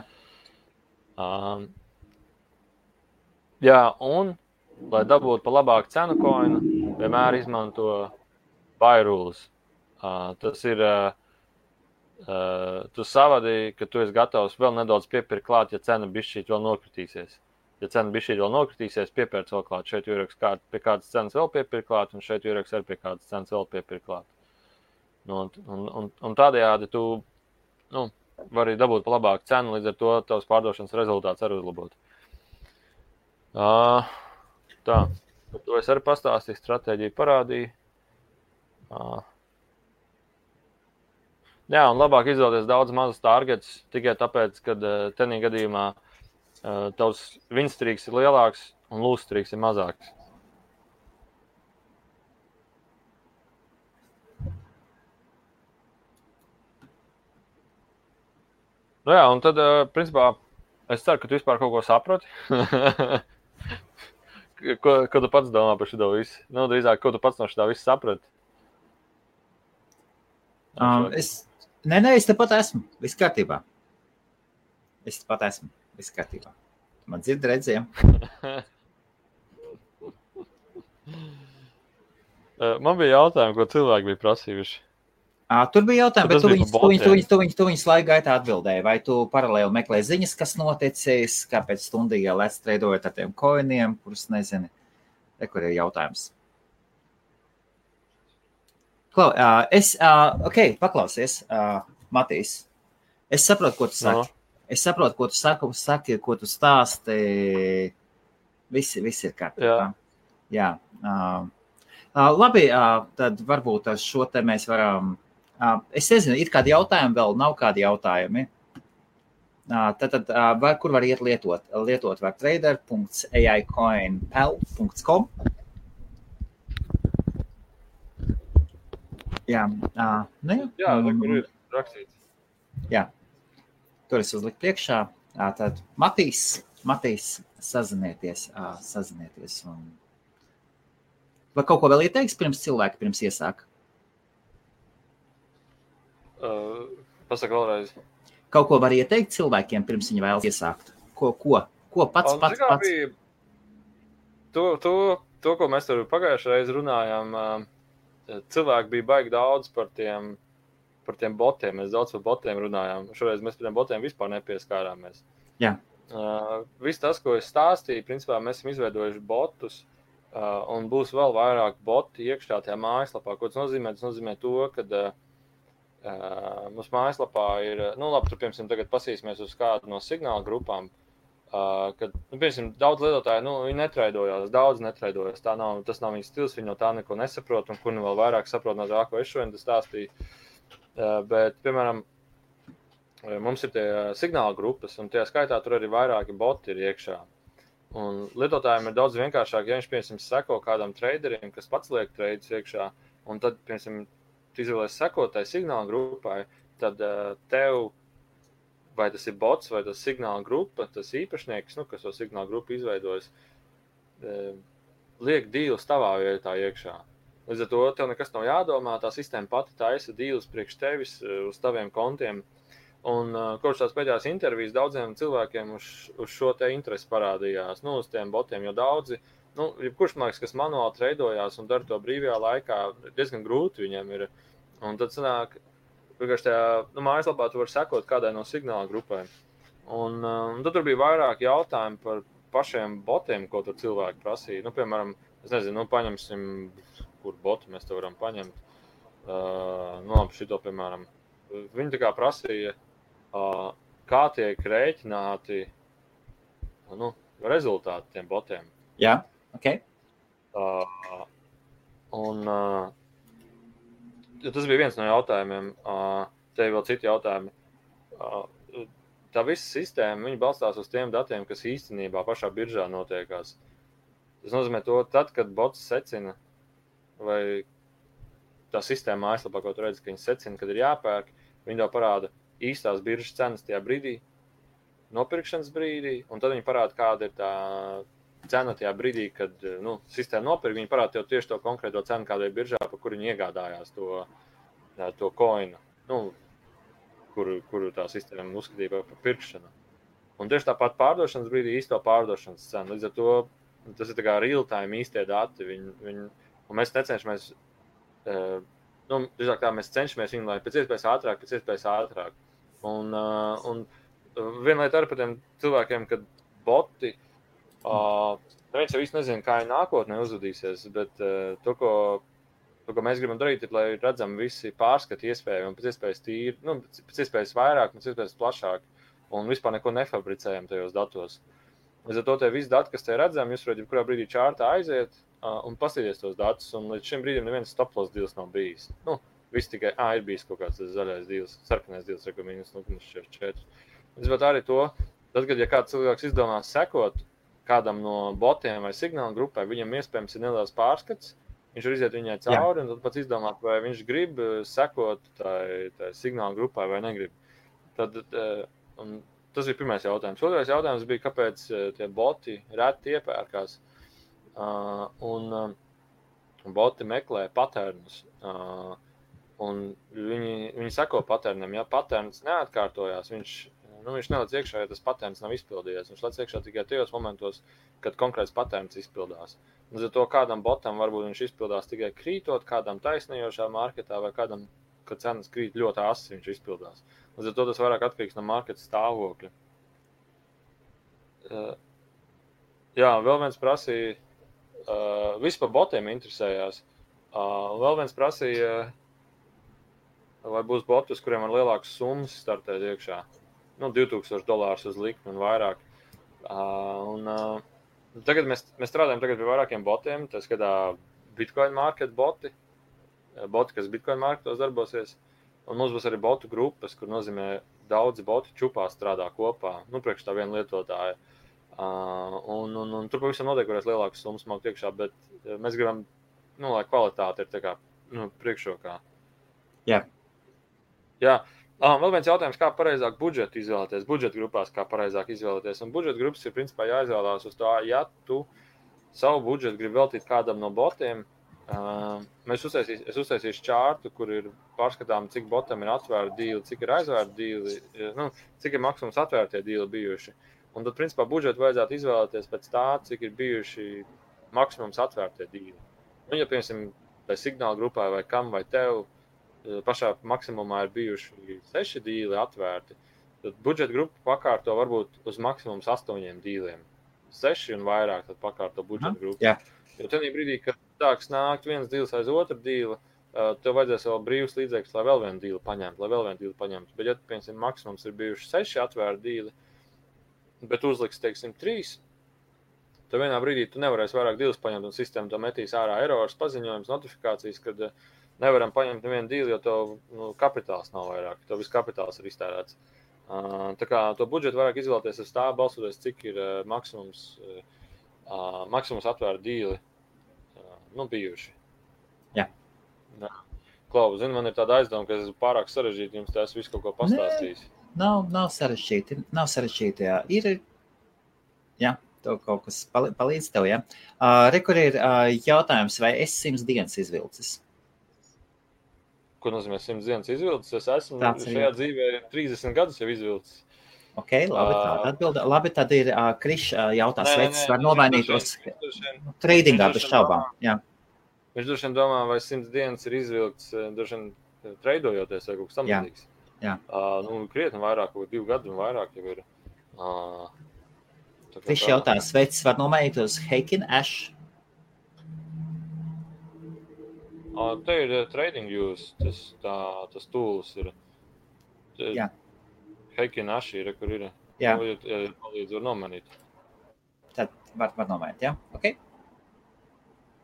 Speaker 2: Un, lai dabūtu pa labāku cenu coinu, vienmēr izmanto buy rules. Tas ir, tu savadīji, ka tu esi gatavs vēl nedaudz piepirkt klāt, ja cena bišķīt vēl nokritīsies. Ja cena bišķīt vēl nokritīsies, piepērc vēl klāt. Šeit jūraks pie kādas cenas vēl piepirkt klāt, un šeit jūraks arī pie kādas cenas vēl piepirkt klāt. Un tādējādi tu vari dabūt pa labāku cenu, līdz ar to tavs pārdošanas rezultāts arī uzlabot. Tā, to es arī pastāstīju, stratēģiju parādīju. Jā, un labāk izvēlēties daudz mazus targets, tikai tāpēc, ka tenī gadījumā tavs winstrīks ir lielāks un lūstrīks ir mazāks. Nu jā, un tad, principā, es ceru, ka tu vispār kaut ko saproti. Ko tu pats domā par šito visu? Nu, drīzāk, ko tu pats no šitā visu saprati?
Speaker 1: Es tepat esmu. Viss kārtībā. Man dzird redzējām.
Speaker 2: Man bija jautājumi, ko cilvēki bija prasījuši.
Speaker 1: Tur bija jautājumi, bet tu viņus laika gaitā atbildēji. Vai tu paralēli meklē ziņas, kas noticis, kāpēc stundīgā lēs treidojot ar tiem koiniem, kurus nezini? Kur ir jautājums? Paklausies, Matīs. Es saprotu, ko tu saki. Ko tu stāsti. Viss ir kārtībā. Jā. Labi, tad varbūt ar šo te mēs varam... Es nezinu, ir kādi jautājumi vēl, nav kādi jautājumi. Tad kur var iet lietot? Lietot var trader.aicoinpal.com. Jā,
Speaker 2: kur ir rakstīts.
Speaker 1: Jā, tur es uzliku priekšā. Tad Matīs, sazinieties. Un... Vai kaut ko vēl ieteiks pirms iesāk?
Speaker 2: Pasaka vēlreiz.
Speaker 1: Kaut ko var ieteikt cilvēkiem, pirms viņi vēlas iesākt? Ko pats?
Speaker 2: To, ko mēs tur pagājušajā reiz runājām, cilvēki bija baigi daudz par tiem botiem. Mēs daudz par botiem runājām. Šoreiz mēs par tiem botiem vispār nepieskārāmies.
Speaker 1: Jā.
Speaker 2: Viss tas, ko es stāstīju, principā mēs esam izveidojuši botus, un būs vēl vairāk boti iekšā tajā mājaslapā. Ko tas nozīmē? Tas nozīmē to, ka mums mājaslapā ir, labi, tur, piemēram, tagad pasīsimies uz kādu no signāla grupām, kad, piemēram, daudz lietotāji, viņi netraidojās, daudz netraidojās, tas nav viņas stils, viņi no tā neko nesaprot, un kur vēl vairāk saprot no tā, ko es šodien stāstīju. Bet, piemēram, mums ir tie signāla grupas, un tajā skaitā tur arī vairāki boti ir iekšā. Un lietotājiem ir daudz vienkāršāk, ja viņš, piemēram, seko kādam traderim, kas pats liek treidus iekšā, un tad, piemēram, tu izvēlies sekotāji signāla grupai, tad tev, vai tas ir bots, vai tas signāla grupa, tas īpašnieks, kas to signāla grupu izveidojas, liek dīlus tavā vietā iekšā. Līdz ar to tev nekas nav jādomā, tā sistēma pati taisa dīlus priekš tevis uz taviem kontiem. Un kopš tās pēdējās intervijas daudziem cilvēkiem uz šo te interesi parādījās, uz tiem botiem, jo daudzi, jebkurš māks, kas manuāli treidojās un dara to brīvajā laikā, diezgan grūti viņiem ir. Un tad sanāk, vienkārši tajā mājaslapā tu vari sekot kādai no signāla grupai. Un tad tur bija vairāk jautājumu par pašiem botiem, ko tur cilvēki prasīja. Piemēram, es nezinu, paņemsim, kur botu mēs te varam paņemt. Šito, piemēram, viņi tā kā prasīja, kā tiek rēķināti rezultāti tiem botiem.
Speaker 1: Jā, ok.
Speaker 2: Tas bija viens no jautājumiem. Te ir vēl citi jautājumi. Tā visa sistēma, viņi balstās uz tiem datiem, kas īstenībā pašā biržā notiekās. Tas nozīmē to, tad, kad bots secina, vai tā sistēma mājaslapā, ko tu redzi, ka viņi secina, kad ir jāpērk, viņi tev parāda īstās biržas cenas tajā brīdī, nopirkšanas brīdī, un tad viņi parāda, kāda ir tā cena tajā brīdī, kad sistēma nopirk, viņi parāda tev tieši to konkrēto cenu, kāda ir biržā, par kuru viņi iegādājās to koinu, kuru tā sistēma uzskatīja par pirkšanu. Un tieši tāpat pārdošanas brīdī īsto pārdošanas cenu. Līdz ar to tas ir tā kā real time īstie dati. Un mēs necenšamies drīzāk tā mēs cenšamies viņu, lai pēc iespējas ātrāk. Un viena lieta ar par tiem cilvēkiem, kad boti, neviens jau īsti nezina, kā viņi nākotnē uzvedīsies, bet to, ko mēs gribam darīt, ir, lai redzam visi pārskati iespēju un pēc iespējas tīri, pēc iespējas vairāk, pēc iespējas plašāk un vispār neko nefabricējam tajos datos. Līdz ar to te visi dati, kas te redzam, jūs varat jebkurā brīdī čārtā aiziet un paskatīties tos datus, un līdz šim brīdim neviens stop-loss deals nav bijis. Viss tikai, ir bijis kaut kāds zaļais deals, sarkanais deals, -0,4. Līdz ar arī to, tad, kad ja kāds cilvēks izdomās sekot kādam no botiem vai signāla grupai, viņam iespējams ir neliels pārskats, viņš var iziet viņai cauri, un tad pats izdomāt, vai viņš grib sekot tai signāla grupai vai negrib. Tad, tas bija pirmais jautājums. Otrais jautājums bija, kāpēc tie boti reti iepērkās. Un boti meklē patērnus. Un viņi seko patērnam. Ja patērns neatkārtojās, viņš neliec iekšā, ja tas patērns nav izpildījies. Viņš lec iekšā tikai tajos momentos, kad konkrēts patērns izpildās. Līdz ar to kādam botam varbūt viņš izpildās tikai krītot, kādam taisnījošā marketā vai kādam, kad cenas krīt ļoti asi, viņš izpildās. Līdz ar to tas vairāk atkarīgs no marketa stāvokļa. Vēl viens prasīja, visi par botiem interesējās. Vēl viens prasīja, vai būs boti, uz kuriem var lielākas summas startēt iekšā. $2000 uz likmi un vairāk. Tagad mēs strādājam pie vairākiem botiem, tā skatā Bitcoin market boti, kas Bitcoin marketos darbosies. Un mums būs arī botu grupas, kur nozīmē daudzi boti čupā strādā kopā, priekš tā viena lietotāja. Un tur pavisam noteikti varēs lielākas summas maukt iekšā, bet mēs gribam, lai kvalitāte ir tā kā priekšrokā.
Speaker 1: Jā.
Speaker 2: Vēl viens jautājums, kā pareizāk budžetu izvēlēties, budžeta grupās kā pareizāk izvēlēties. Un budžeta grupas ir principā jāizvēlās uz tā, ja tu savu budžetu gribi veltīt kādam no botiem, es uztaisīšu čārtu, kur ir pārskatām, cik botam ir atvērti dīli, cik ir aizvērti dīli, cik ir maksimums atvērtie dīli bijuši. Un tad, principā, budžetu vajadzētu izvēlēties pēc tā, cik ir bijuši maksimums atvērtie dīli. Ja, piemēram, vai signāla grupai, vai kam, vai tev, pašā maksimumā ir bijuši 6 dīli atvērti, tad budžeta grupa pakārto varbūt uz maksimums 8 dīliem. 6 un vairāk tad pakārto budžeta grupu.
Speaker 1: Jā.
Speaker 2: Jo tajā brīdī, kad sāks nākt viens dīls aiz otru dīli, tev vajadzēs vēl brīvs līdzekļus, lai vēl vienu dīli paņemtu. Bet, ja, piemēram, maksimums ir bijuši 6 atvērti dīli, bet uzliks, teiksim, 3, tad vienā brīdī tu nevarēsi vairāk dīlus paņemt, un sistēma to metīs ārā errors, paziņojums, notifikācijas, kad nevaram paņemt nevienu dīli, jo tev kapitāls nav vairāk, tev viss kapitāls ir iztērēts. Tā kā to budžetu vairāk izvēlēties uz tā, balsoties, cik ir maksimums atvērti dīli bijuši.
Speaker 1: Jā.
Speaker 2: Klau, zini, man ir tāda aizdoma, ka es esmu pārāk sarežģīti, jums tas visu kaut ko pastāstījis.
Speaker 1: Nav sarežģīti, jā. Jā, tev kaut kas palīdz tev, jā. Kur ir jautājums, vai es 100 dienas izvilcis?
Speaker 2: Ko nozīmē 100 dienas izvilcis? Es esmu šajā dzīvē 30 gadus jau izvilcis.
Speaker 1: Ok, labi, tāda atbilda. Labi, tad ir Krišs jautās, vai tas var nomainītos tradingā bez šaubām. Jā.
Speaker 2: Viņš droši vien domā, vai 100 dienas ir izvilkts, droši vien treidojoties vai kaut kas tam līdzīgs.
Speaker 1: Jā.
Speaker 2: Krietni vairāk, kaut 2 gadu un vairāk jau ir.
Speaker 1: Krišs jautās, vai tas var nomainītos Heikin Ash?
Speaker 2: Te ir trading views, tas tools ir.
Speaker 1: Jā.
Speaker 2: Heikin Ash ir, kur ir.
Speaker 1: Jā.
Speaker 2: Palīdz var nomainīt.
Speaker 1: Tad var nomainīt, jā? Ok.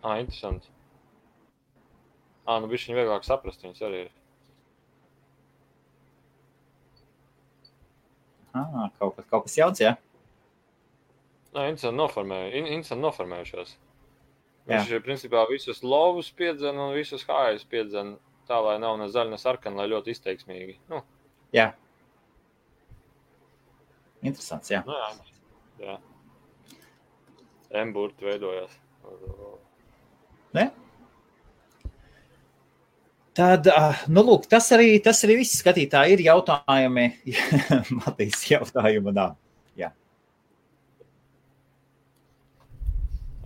Speaker 2: Interesanti. Bišķiņ vieglāk saprast, viņas arī ir.
Speaker 1: Kaut kas jauns, jā?
Speaker 2: Interesanti noformējušās. Viņš principā visus lovus piedzen un visus hājus piedzen tā, lai nav ne zaļa, ne sarkana, lai ļoti izteiksmīgi.
Speaker 1: Jā. Interesants, jā.
Speaker 2: Jā. M-burti veidojās.
Speaker 1: Ne? Tad, lūk, tas arī viss skatītāji ir jautājumi. Matīs jautājumu nav. Jā.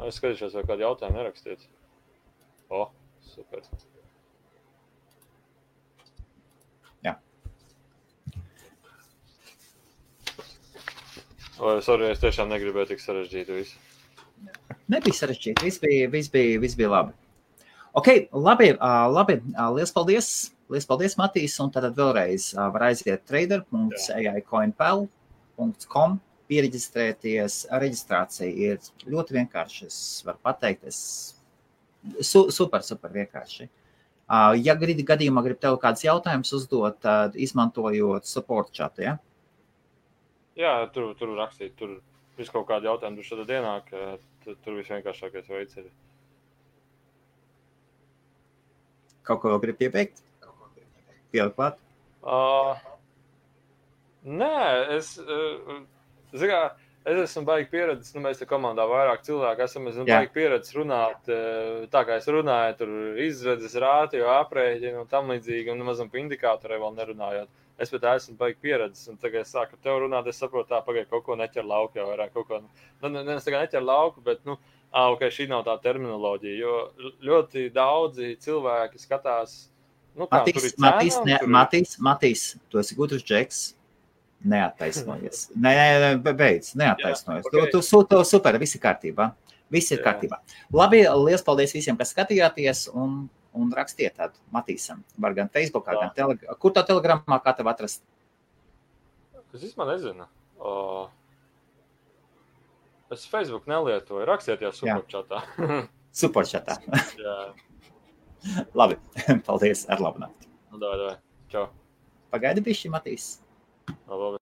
Speaker 2: Es skatīšos, vai kādu jautājumu nerakstiet. Super. Sorry, es tiešām negribēju tik sarežģīt visu.
Speaker 1: Nebija sarežģīti, viss bija labi. Ok, labi, liels paldies, Matīs, un tad vēlreiz var aiziet trader.aicoinpal.com, piereģistrēties, reģistrācija ir ļoti vienkārši, es varu pateikt, super vienkārši. Ja gadījumā grib tev kāds jautājums uzdot, tad izmantojot support chatu, ja?
Speaker 2: Jā, tur rakstīt, tur visu kaut kādu jautājumu, tur šādā dienāk, tur visvienkāršākais veids ir.
Speaker 1: Kaut ko vēl grib piebeigt? Pielikt klāt?
Speaker 2: Nē, es esmu baigi pieredzis, mēs te komandā vairāk cilvēku esam baigi pieredzis runāt, tā kā es runāju, tur izredzes, rātio, aprēķinu un tam līdzīgi, un mazam pa indikātorē vēl nerunājot. Es pēc tā esmu baigi pieredzis, un tagad es sāku ar tev runāt, es saprotu, tā pagaid kaut ko neķer lauku jau vairāk, kaut ko, es tagad neķer lauku, bet, ok, šī nav tā terminoloģija, jo ļoti daudzi cilvēki skatās, kā tur ir cēnām.
Speaker 1: Matīs, tu esi gudrs džeks, neattaisnojies. Beidz, neattaisnojies. Okay. Tu super, viss ir kārtībā. Viss ir kārtībā. Labi, liels paldies visiem, kas skatījāties, un rakstiet tādu Matīsam. Var gan Facebookā, gan Telegramā. Kur tā Telegramā, kā tev atrast?
Speaker 2: Es īstenībā nezinu. Es Facebook nelietoju. Rakstiet jau superčatā.
Speaker 1: Superčatā. Labi, paldies, ar labu nakti.
Speaker 2: Davai. Čau.
Speaker 1: Pagaidi bišķi, Matīs.
Speaker 2: Labi.